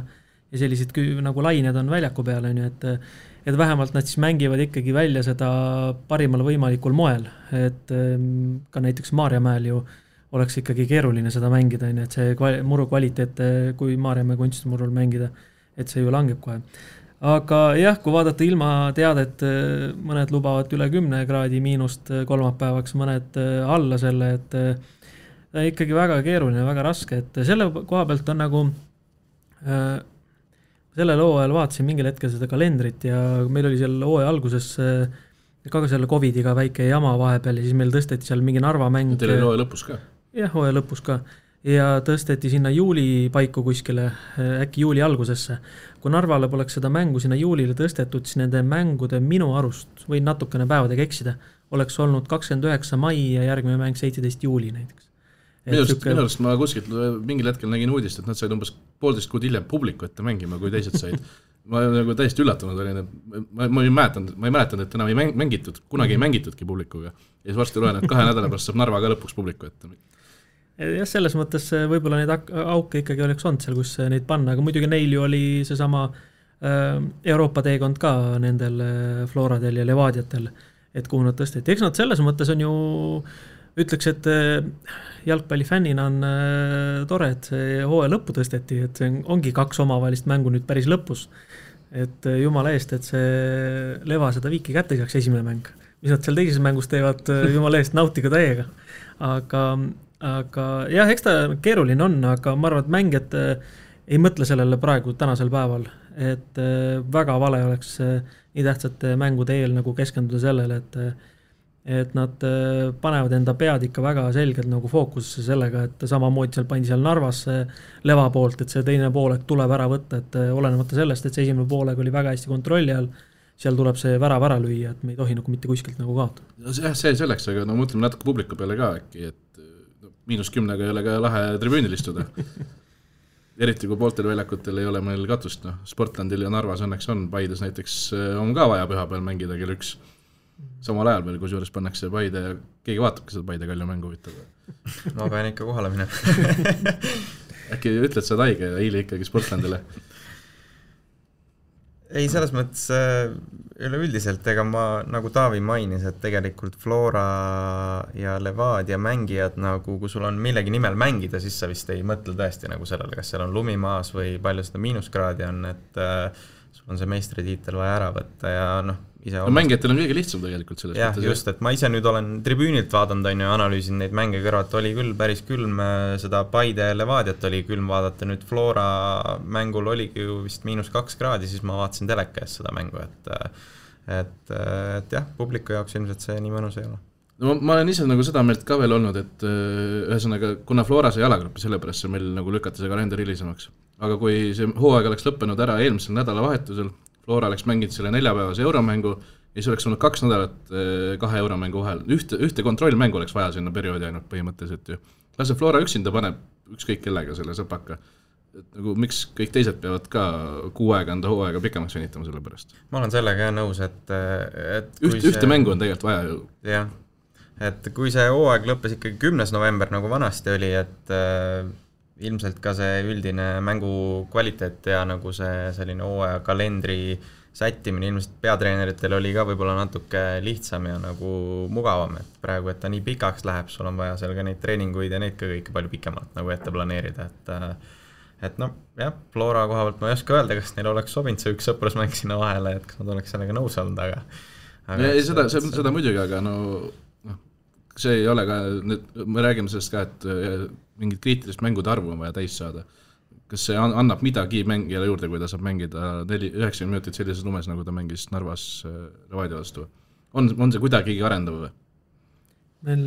sellised nagu lained on väljaku peal, et vähemalt nad siis mängivad ikkagi välja seda parimal võimalikul moel, et ka näiteks Maarjamäel ju oleks ikkagi keeruline seda mängida, et see muru kvaliteet, kui Maarjamäe kunstimurul mängida, et see ju langeb kohe. Aga jah, kui vaadata ilma teadet, mõned lubavad üle 10 kraadi miinust kolmapäevaks, mõned alla selle, et ta ikkagi väga keeruline, väga raske, et selle koha pealt on nagu sellel hooajal vaatasin mingil hetkel seda kalendrit ja meil oli seal hooaja alguses ka selle COVIDiga väike jama vahepeal ja siis meil tõsteti seal mingi Narva mäng. Teil oli hooaja lõpus ka? Jah, hooaja lõpus ka. Ja tõsteti sinna juuli paiku kuskile, äkki juuli algusesse. Kui Narvale poleks seda mängu sinna juulile tõstetud, siis nende mängude minu arust, või natukene päevadega eksida, oleks olnud 29 mai ja järgmine mäng 17 juuli näiteks. Minu arust ma kuskilt mingil hetkel nägin uudist, et nad said umbes 1,5 kuud hiljem publiku ette mängima, kui teised said. Ma nagu täiesti üllatunud olin, et ma ei mäletanud, et enam ei mängitud, kunagi ei mängitudki publikuga. Ja siis varsti loen, et 2 nädala pärast saab Narva ka lõpuks publiku ette. Jah, selles mõttes võib-olla neid auke ikkagi oleks olnud seal, kus neid panna, aga muidugi neil ju oli seesama Euroopa teekond ka nendel Floradel ja Levadiatel, et kuhu nad tõsteti. Eks nad selles mõttes on ju, ütleks, et jalgpallifännina on tore, et see hooaja lõppu tõsteti, et see ongi 2 omavahelist mängu nüüd päris lõpus. Et jumala eest, et see Leva seda viiki kätte saaks esimene mäng. Mis nad seal teises mängus teevad, jumala eest nautiga täiega. Aga jah, eks ta keeruline on, aga ma arvan, et mängijad ei mõtle sellele praegu tänasel päeval, et väga vale oleks nii tähtsate mängude eel nagu keskenduda sellele, et nad panevad enda pead ikka väga selgelt nagu fookusesse sellega, et samamoodi seal pandi seal Narvas leva poolt, et see teine poolek tuleb ära võtta, et olenemata sellest, et see esimene poolek oli väga hästi kontrolli all, seal tuleb see värav ära lüüa, et me ei tohi nagu mitte kuskilt nagu kaotada. See selleks, aga no mõtleme natuke publiku peale ka äkki, et -10 ei ole ka lahe tribüünil istuda. Eriti kui pooltel väljakutel ei ole meil katust, Sportlandil ja Narvas õnneks on, Paides näiteks on ka vaja püha peal mängida kell 1. Samal ajal veel, kus juures pannakse Paide ja keegi vaatabki seda Paide Kalju mängu huvitav. Ma pean ikka kohale minema. Äkki ütled sa taige ja hiili ikkagi Sportlandile? Ei, selles mõttes üleüldiselt, ega ma nagu Taavi mainis, et tegelikult Flora ja Levadia mängijad nagu, kui sul on millegi nimel mängida, siis sa vist ei mõtle tõesti nagu sellele, kas seal on lumimaas või palju seda miinuskraadi on, et sul on see meistritiitel vaja ära võtta ja mängijatel on kõige lihtsam tegelikult selles mõttes. Jah, just, et ma ise nüüd olen tribüünilt vaadanud ja analüüsin neid mänge kõrvalt, oli küll päris külm, seda Paide Levadiat oli külm vaadata, nüüd Flora mängul oligi ju vist -2 kraadi, siis ma vaatasin teleka ees seda mängu, et jah, publiku jaoks ilmselt see nii mõnus ei ole. No ma olen ise nagu seda meelt ka veel olnud, et ühesõnaga, kuna Flora sai jalagruppi, sellepärast see meil nagu lükati see kalender hilisemaks. Aga kui see hooaeg oleks lõppenud ära eelmisel nädalavahetusel, Flora oleks mänginud selle 4-päevase euromängu ja siis oleks olnud 2 nädalat 2 euromängu vahel. Ühte kontrollmängu oleks vaja sinna perioodi ainult põhimõtteliselt ju. Lase Flora üksinda paneb ükskõik kellega selle sõpaka. Et nagu miks kõik teised peavad ka 6 aega enda hooaega pikemaks venitama selle pärast? Ma olen sellega nõus, et ühte mängu on tegelikult vaja ju. Jah, et kui see hooaeg lõppes ikkagi 10. november nagu vanasti oli, et ilmselt ka see üldine mängu kvaliteet ja nagu see selline hooaja kalendri sättimine ilmselt peatreeneritel oli ka võib-olla natuke lihtsam ja nagu mugavam, et praegu, et ta nii pikaks läheb, sul on vaja seal ka neid treeninguid ja neid ka kõike palju pikemalt nagu ette planeerida, et no jah, Flora koha pealt ma ei oska öelda, kas neil oleks sobinud see üks sõprusmäng sinna vahele, et kas nad oleks sellega nõus olnud, aga ei, seda muidugi, aga no see ei ole ka, me räägime sellest ka, et mingid kriitilist mängude arvu on vaja täis saada. Kas see annab midagi mängijale juurde, kui ta saab mängida 90 minutit sellises lumes, nagu ta mängis Narvas Levadia vastu? On see kuidagi arendav või?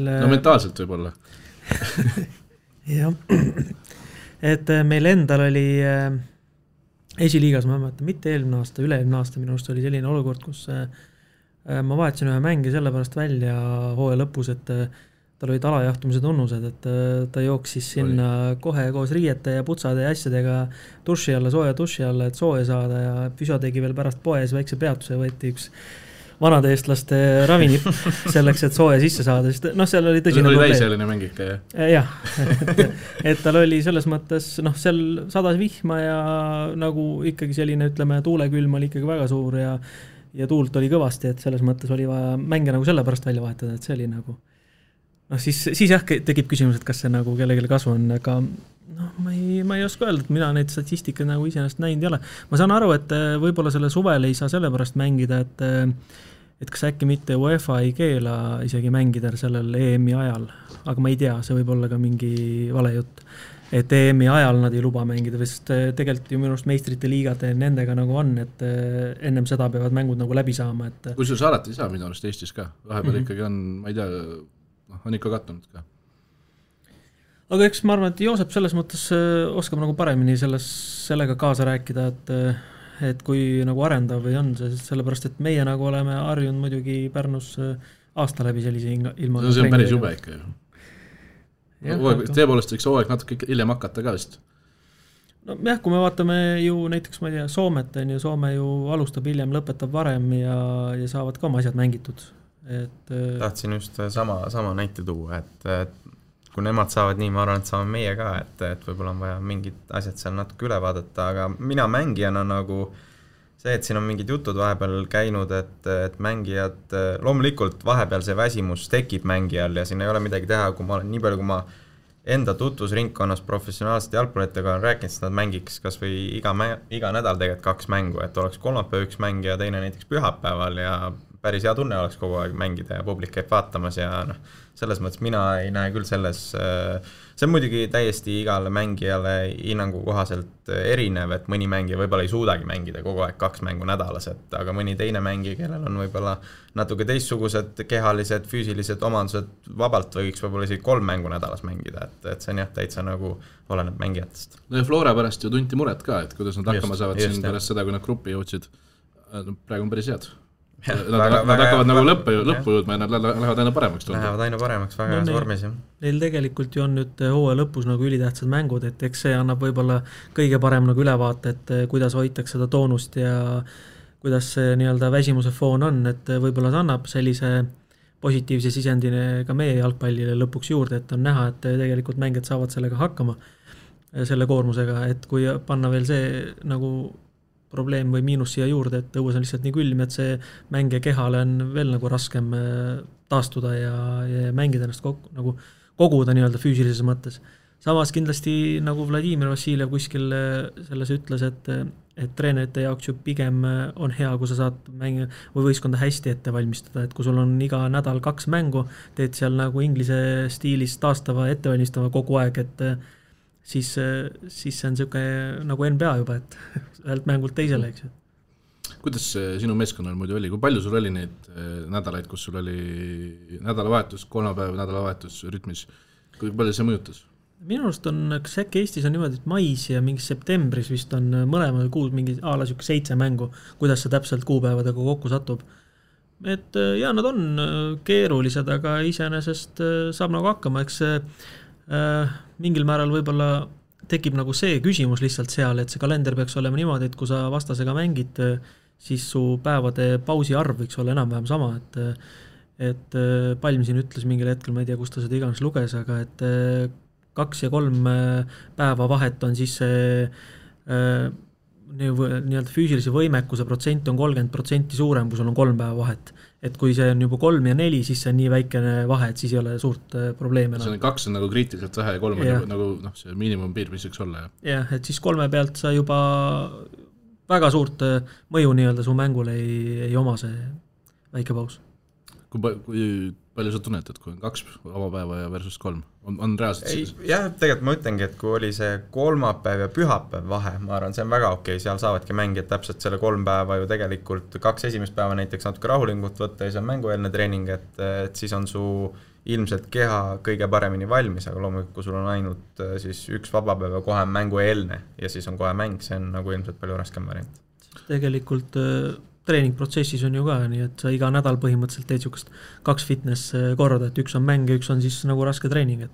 No mentaalselt võib-olla. Jah, et meil endal oli esiliigas, ma mõtlen, mitte eelmine aasta, üle-eelmine aasta minu arust oli selline olukord, kus ma vaatasin ühe mängi sellepärast välja hooaja lõpus, et tal olid alajahtumise tunnused, et ta jooksis sinna kohe koos riiete ja putsade ja asjadega duši alla, sooja duši alla, et sooja saada ja Püso tegi veel pärast poes väikse peatuse, võeti üks vanade eestlaste ravinipp selleks, et sooja sisse saada, sest seal oli tõsine probleem. Oli täiseline mäng ikka, jah? Jah, et tal oli selles mõttes, seal sadas vihma ja nagu ikkagi selline, ütleme, tuulekülm oli ikkagi väga suur ja tuult oli kõvasti, et selles mõttes oli vaja mänge nagu selle pärast välja vahetada, et see oli nagu siis jah, tekib küsimus, et kas see nagu kellelegi kasu on, aga ma ei oska öelda, et mina neid statistikaid nagu iseenesest näinud ei ole. Ma saan aru, et võib-olla selle suvel ei saa selle pärast mängida, et kas äkki mitte UEFA ei keela isegi mängida sellel EM-i ajal, aga ma ei tea, see võib olla ka mingi vale jutt, et EM-i ajal nad ei luba mängida, sest tegelikult ju minu arust meistrite liigad nendega nagu on, et ennem seda peavad mängud nagu läbi saama. Kui sul alati ei saa minu arust Eestis ka, vahepeal ikkagi on, ma ei tea, on ikka kattunud ka. Aga eks ma arvan, et Joosep selles mõttes oskab nagu paremini sellega kaasa rääkida, et kui nagu arendav või on see, sellepärast, et meie nagu oleme harjunud muidugi Pärnus aasta läbi sellise ilma. See on päris jube ikka ju. Tõepoolest võiks hooaeg natuke hiljem hakata ka vist. No jah, kui me vaatame ju näiteks, ma ei tea, Soomet on ju, Soome ju alustab hiljem, lõpetab varem ja saavad ka oma asjad mängitud. Tahtsin just sama näite tuua, et kui nemad saavad nii, ma arvan, et saame meie ka, et võib-olla on vaja mingid asjad seal natuke üle vaadata, aga mina mängijana nagu see, et siin on mingid jutud vahepeal käinud, et mängijad, loomulikult vahepeal see väsimus tekib mängijal ja siin ei ole midagi teha, kui ma olen nii palju, kui ma enda tutvusringkonnas professionaalsete jalgpallitega olen rääkinud, siis nad mängiks kas või iga nädal tegelikult 2 mängu, et oleks kolmapäev 1 mäng ja teine näiteks pühapäeval ja päris hea tunne oleks kogu aeg mängida ja publik käib vaatamas ja noh, selles mõttes mina ei näe küll selles, see on muidugi täiesti igale mängijale hinnangu kohaselt erinev, et mõni mängija võib-olla ei suudagi mängida kogu aeg 2 mängu nädalas, aga mõni teine mängija, kellel on võib-olla natuke teistsugused kehalised, füüsilised omandused, vabalt võiks võib-olla isegi 3 mängu nädalas mängida, et see on jah, täitsa nagu oleneb mängijatest. No ja Flora pärast ju tunti muret ka, et kuidas nad hakkama saavad siin pärast seda, kui nad gruppi jõudsid. Praegu on päris head. Nad hakkavad nagu lõppu jõudma ja nad lähevad aina paremaks. Lähevad aina paremaks, väga heas vormis. Neil tegelikult ju on nüüd hooaja lõpus nagu ülitähtsad mängud, et eks see annab võib-olla kõige parem nagu ülevaate, et kuidas hoitakse seda toonust ja kuidas see nii-öelda väsimuse foon on, et võib-olla see annab sellise positiivse sisendine ka meie jalgpallile lõpuks juurde, et on näha, et tegelikult mängijad saavad sellega hakkama, selle koormusega, et kui panna veel see nagu probleem või miinus siia juurde, et õues on lihtsalt nii külm, et see mängija kehale on veel nagu raskem taastuda ja mängida ennast nagu koguda nii-öelda füüsilises mõttes. Samas kindlasti nagu Vladimir Vassiljev kuskil selles ütles, et treenerite jaoks ju pigem on hea, kui sa saad mänge või võistkonda hästi ette valmistada, et kui sul on iga nädal 2 mängu, teed seal nagu inglise stiilis taastava, ettevalmistava kogu aeg, et siis see on niisugune nagu NBA juba, et ühelt mängult teisele, eks ju. Kuidas sinu meeskonnal muidu oli? Kui palju sul oli neid nädalaid, kus sul oli nädalavahetus, 3 päeva nädalavahetus rütmis? Kui palju see mõjutas? Minu arust on, kas äkki Eestis on niimoodi, et mais ja mingi septembris vist on mõlemal kuus mingi 7 mängu, kuidas see täpselt kuupäevadega kokku satub. Et ja, nad on keerulised, aga iseenesest saab nagu hakkama, eks mingil määral võib-olla tekib nagu see küsimus lihtsalt seal, et see kalender peaks olema niimoodi, et kui sa vastasega mängid, siis su päevade pausi arv võiks olla enam-vähem sama, et Palm siin ütles mingil hetkel, ma ei tea, kus ta seda iganes luges, aga et 2 ja 3 päeva vahet on siis nii-öelda füüsilise võimekuse protsent on 30% suurem, kui sul on 3 päeva vahet. Et kui see on juba 3 ja 4, siis see on nii väikene vahe, et siis ei ole suurt probleemi. See on 2 on nagu kriitiliselt vähe ja 3 on nagu see miinimumpiir, mis võiks olla. Jah, et siis 3 pealt sa juba väga suurt mõju nii-öelda su mängule ei oma see väike paus. Kui palju sa tunned, et kui on 2 vabapäeva ja versus 3, on reaalselt? Jah, tegelikult ma ütlengi, et kui oli see kolmapäev ja pühapäev vahe, ma arvan, see on väga okei, seal saavadki mängijad täpselt selle 3 päeva ju tegelikult 2 esimest päeva näiteks natuke rahulingut võtta ja see on mängueelne treening, et siis on su ilmselt keha kõige paremini valmis, aga loomulikult, kui sul on ainult siis 1 vabapäev ja kohe mängueelne ja siis on kohe mäng, see on nagu ilmselt palju raskem variant. Tegelikult treeningprotsessis on ju ka, nii et sa iga nädal põhimõtteliselt teed niisugust 2 fitness korda, et 1 on mäng ja 1 on siis nagu raske treening.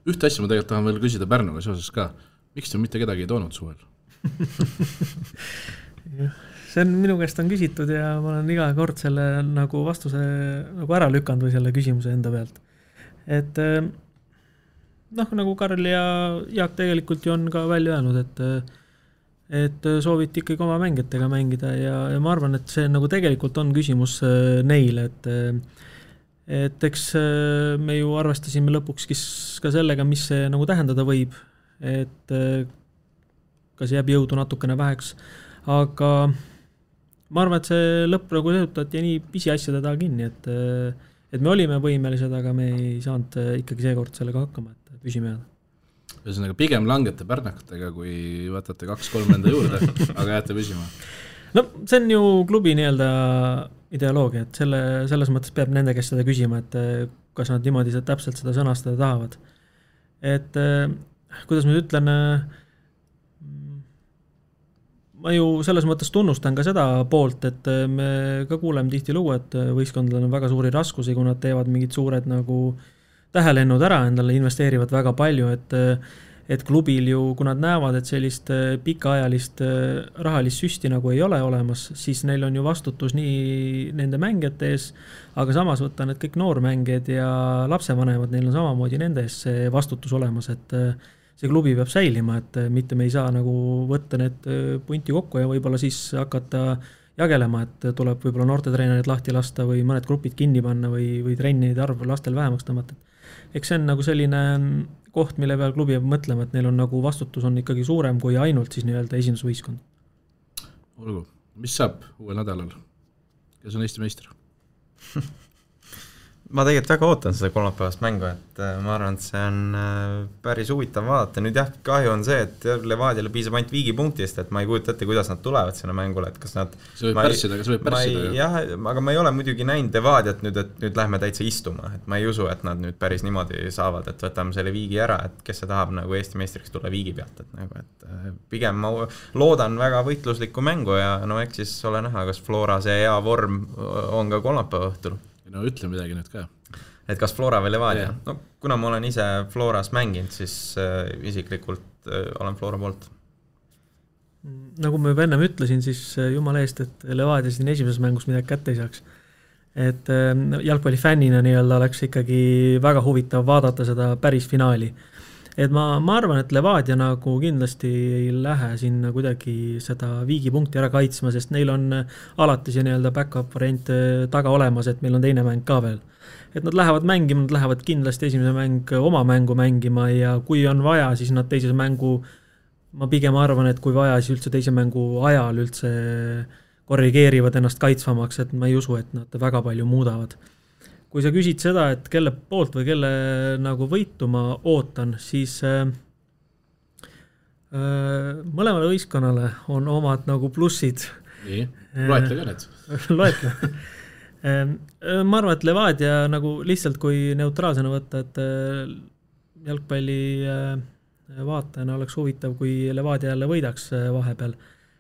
Ühte asja ma tegelikult tahan veel küsida Pärnuga seoses ka. Miks te mitte kedagi ei toonud suvel? See on minu käest on küsitud ja ma olen iga kord selle nagu vastuse nagu ära lükanud või selle küsimuse enda pealt. Et nagu Karl ja Jaak tegelikult ju on ka välja öelnud, et sooviti ikkagi oma mängijatega mängida ja ma arvan, et see nagu tegelikult on küsimus neile, et eks me ju arvestasime lõpuks ka sellega, mis see nagu tähendada võib, et kas jääb jõudu natukene väheks, aga ma arvan, et see lõpp nagu sehutati nii pisiasjade taha kinni, et me olime võimelised, aga me ei saanud ikkagi seekord sellega hakkama, et püsime jääda. Ühesõnaga pigem langete pärnakatega, kui võtate 2-3 enda juurde, aga jääte püsima. No see on ju klubi nii-öelda ideoloogia, et selles mõttes peab nende käest seda küsima, et kas nad niimoodi täpselt seda sõnastada tahavad. Et kuidas ma ütlen, ma ju selles mõttes tunnustan ka seda poolt, et me ka kuuleme tihti lugu, et võistkondadel on väga suuri raskusi, kui nad teevad mingid suured nagu tähelennud ära, endale investeerivad väga palju, et klubil ju, kui nad näevad, et sellist pikaajalist rahalist süsti nagu ei ole olemas, siis neil on ju vastutus nii nende mängijate ees, aga samas võtta need kõik noormängijad ja lapsevanemad, neil on samamoodi nende ees see vastutus olemas, et see klubi peab säilima, et mitte me ei saa nagu võtta need punti kokku ja võib-olla siis hakata jagelema, et tuleb võib-olla noortetreenerid lahti lasta või mõned grupid kinni panna või trennide arv lastel vähemaks tõmmata. Eks see on nagu selline koht, mille peal klubi peab mõtlema, et neil on nagu vastutus on ikkagi suurem kui ainult siis nii-öelda esindusvõistkond. Olgu, mis saab uuel nädalal? kes on Eesti meister? Ma tegelikult väga ootan seda kolmapäevast mängu, et ma arvan, et see on päris huvitav vaadata. Nüüd jah, kahju on see, et Levadiale piisab ainult Viigi punktist, et ma ei kujuta ette, kuidas nad tulevad sinna mängule, et kas nad see võib pärssida. Jah, aga ma ei ole muidugi näinud Levadiat nüüd, et nüüd lähme täitsa istuma, et ma ei usu, et nad nüüd päris niimoodi saavad, et võtame selle Viigi ära, et kes see tahab nagu Eesti meistriks tulla Viigi pealt, et nagu, et pigem ma loodan väga võitluslikku mängu ja no eks siis ole näha, kas Flora see hea vorm on ka kolmapäeva õhtul. No ütle midagi nüüd ka. Et kas Flora või Levadia? No, kuna ma olen ise Floras mänginud, siis isiklikult olen Flora poolt. Nagu ma juba ennem ütlesin, siis jumala eest, et Levadia siin esimeses mängus midagi kätte ei saaks. Et jalgpallifännina nii-öelda oleks ikkagi väga huvitav vaadata seda päris finaali. Et ma arvan, et Levadia nagu kindlasti ei lähe sinna kuidagi seda Viigi punkti ära kaitsma, sest neil on alati see nii-öelda backup variant taga olemas, et meil on teine mäng ka veel. Et nad lähevad mängima, nad lähevad kindlasti esimese mäng oma mängu mängima ja kui on vaja, siis nad teises mängu, ma pigem arvan, et kui vaja, siis üldse teise mängu ajal üldse korrigeerivad ennast kaitsvamaks, et ma ei usu, et nad väga palju muudavad. Kui sa küsid seda, et kelle poolt või kelle nagu võitu ma ootan, siis mõlemale võistkonnale on omad nagu plussid. Nii, loetle ka need. Loetle. Ma arvan, et Levadia nagu lihtsalt kui neutraalsena võtta, et jalgpalli vaatajana oleks huvitav, kui Levadia jälle võidaks vahepeal,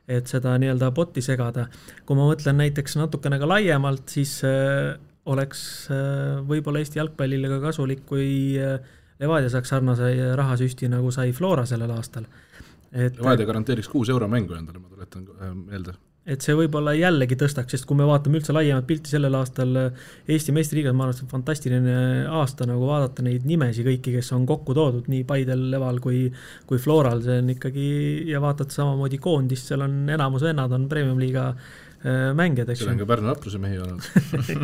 et seda nii-öelda botti segada. Kui ma mõtlen näiteks natukene ka laiemalt, siis oleks võib-olla Eesti jalgpallile ka kasulik, kui Levadia saaks sarnase rahasüsti, nagu sai Flora sellel aastal. Levadia garanteeriks 6 euro mängu endale, ma tuletan meelde. Et see võib-olla jällegi tõstaks, sest kui me vaatame üldse laiemat pilti sellel aastal Eesti meistriliigas, ma arvan, et see on fantastiline aasta nagu vaadata neid nimesi kõiki, kes on kokku toodud nii Paidel, Leval kui Floral, see on ikkagi, ja vaatad samamoodi koondist, seal on enamus vennad on Premium Liiga mängijad, eks. Seal on ka Pärnu Vapruse mehi olnud.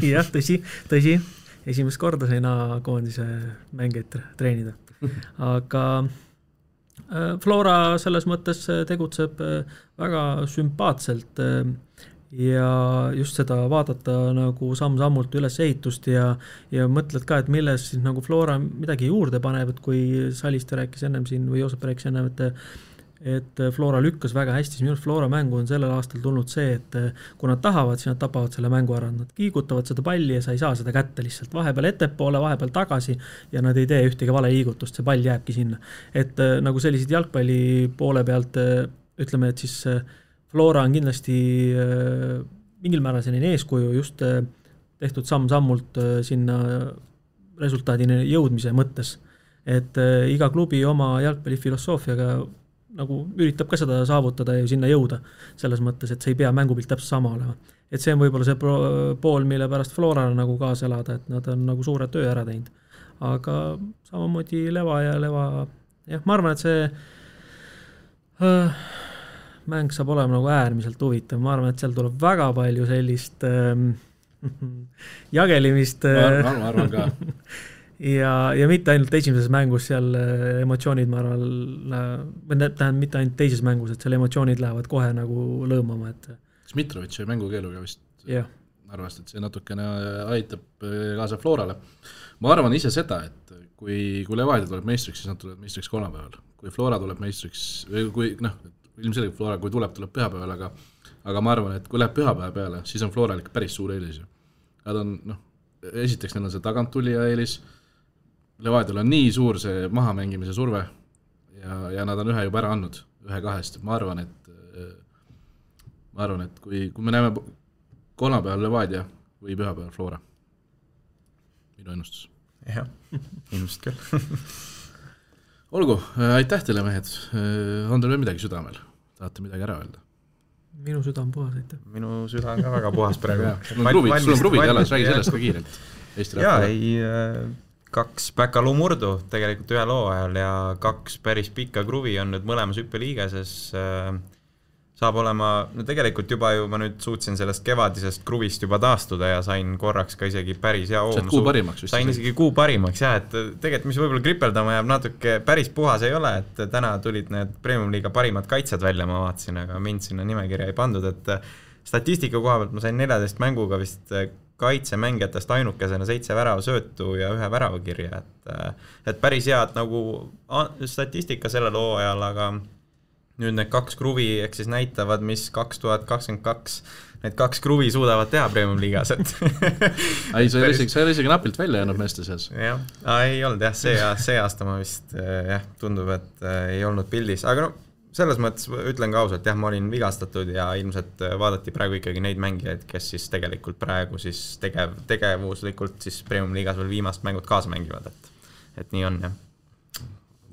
Jah, tõsi, esimest korda sai koondise mängijaid treenida. Aga Flora selles mõttes tegutseb väga sümpaatselt ja just seda vaadata nagu samm-sammult üles ehitust ja mõtled ka, et milles siis nagu Flora midagi juurde paneb, et kui Saliste rääkis ennem siin või Joosep rääkis ennem, et Flora lükkas väga hästi, siis minu Flora mängu on sellel aastal tulnud see, et kui nad tahavad, siis nad tapavad selle mängu ära, nad kiigutavad seda palli ja sa ei saa seda kätte lihtsalt, vahepeal ettepoole, vahepeal tagasi ja nad ei tee ühtegi vale liigutust, see pall jääbki sinna. Et nagu sellised jalgpalli poole pealt ütleme, et siis Flora on kindlasti mingil määral selline eeskuju just tehtud samm-sammult sinna resultaadini jõudmise mõttes, et iga klubi oma jalgpallifilosoofiaga nagu üritab ka seda saavutada ja sinna jõuda selles mõttes, et see ei pea mängupilt täpselt sama olema. Et see on võib-olla see pool, mille pärast Florale nagu kaasa elada, et nad on nagu suure töö ära teinud. Aga samamoodi Leva, jah, ma arvan, et see mäng saab olema nagu äärmiselt huvitav. Ma arvan, et seal tuleb väga palju sellist jagelimist. Ma arvan ka. Ja mitte ainult esimeses mängus seal emotsioonid, ma arvan, mitte ainult teises mängus, et seal emotsioonid lähevad kohe nagu lõõmama. Smitrovitši mängukeeluga vist arvast, et see natukene aitab kaasa Florale. Ma arvan ise seda, et kui Levadia tuleb meistriks, siis nad tulevad meistriks kolmapäeval. Kui Flora tuleb meistriks, ilmselgelt Flora, kui tuleb pühapäeval, aga ma arvan, et kui läheb pühapäeva peale, siis on Florale päris suur eelis. Nad on, esiteks neil on see taganttulija eelis, Levadial on nii suur see mahamängimise surve ja nad on ühe juba ära andnud, 1-2, ma arvan, et kui me näeme kolmapäeval Levadia või pühapäeval Flora, minu ennustus. Jah, ilmselt küll. Olgu, aitäh teile mehed, on teil veel midagi südamel, tahate midagi ära öelda? Minu süda on puhas, aitäh. Minu süda on ka väga puhas praegu. Sul on pruvid jälle, räägi sellest ka kiirelt. Jaa, 2 Päkalu murdu tegelikult ühe loo ajal ja 2 päris pikka kruvi on nüüd mõlemas hüppeliigases. Saab olema, tegelikult juba ju ma nüüd suutsin sellest kevadisest kruvist juba taastuda ja sain korraks ka isegi päris hea oom. Kuu parimaks vist. Sain isegi kuu parimaks, jah, et tegelikult mis võib-olla kripeldama jääb natuke päris puhas ei ole, et täna tulid need Premium Liiga parimad kaitsjad välja, ma vaatasin, aga mind sinna nimekirja ei pandud, et statistika koha pealt ma sain 14 mänguga vist kaitsemängijatest ainukesena 7 väravasöötu ja 1 väravakirja, et päris head nagu statistika sellel hooajal, aga nüüd need 2 kruvi ehk siis näitavad, mis 2022 need 2 kruvi suudavad teha Premium liigas, et ei, see oli isegi napilt välja jäänud meeste seas. Jah, ei olnud jah, see aasta ma vist tundub, et ei olnud pildis, aga no selles mõttes ütlen ka ausalt, jah, ma olin vigastatud ja ilmselt vaadati praegu ikkagi neid mängijaid, kes siis tegelikult praegu siis tegevuslikult siis Premium liigas veel viimast mängut kaasa mängivad, et nii on, jah.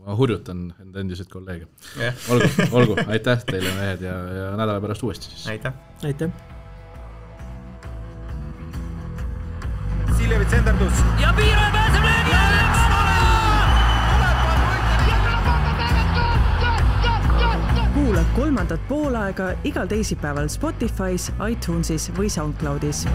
Ma hurjutan enda endiseid kolleege. Olgu, aitäh teile mehed ja nädala pärast uuesti siis. Aitäh. Siljevits enderdus. Ja Piiro pääseb löögi alla! Kuula 3. poolaega igal teisipäeval Spotify's, iTunesis või SoundCloudis.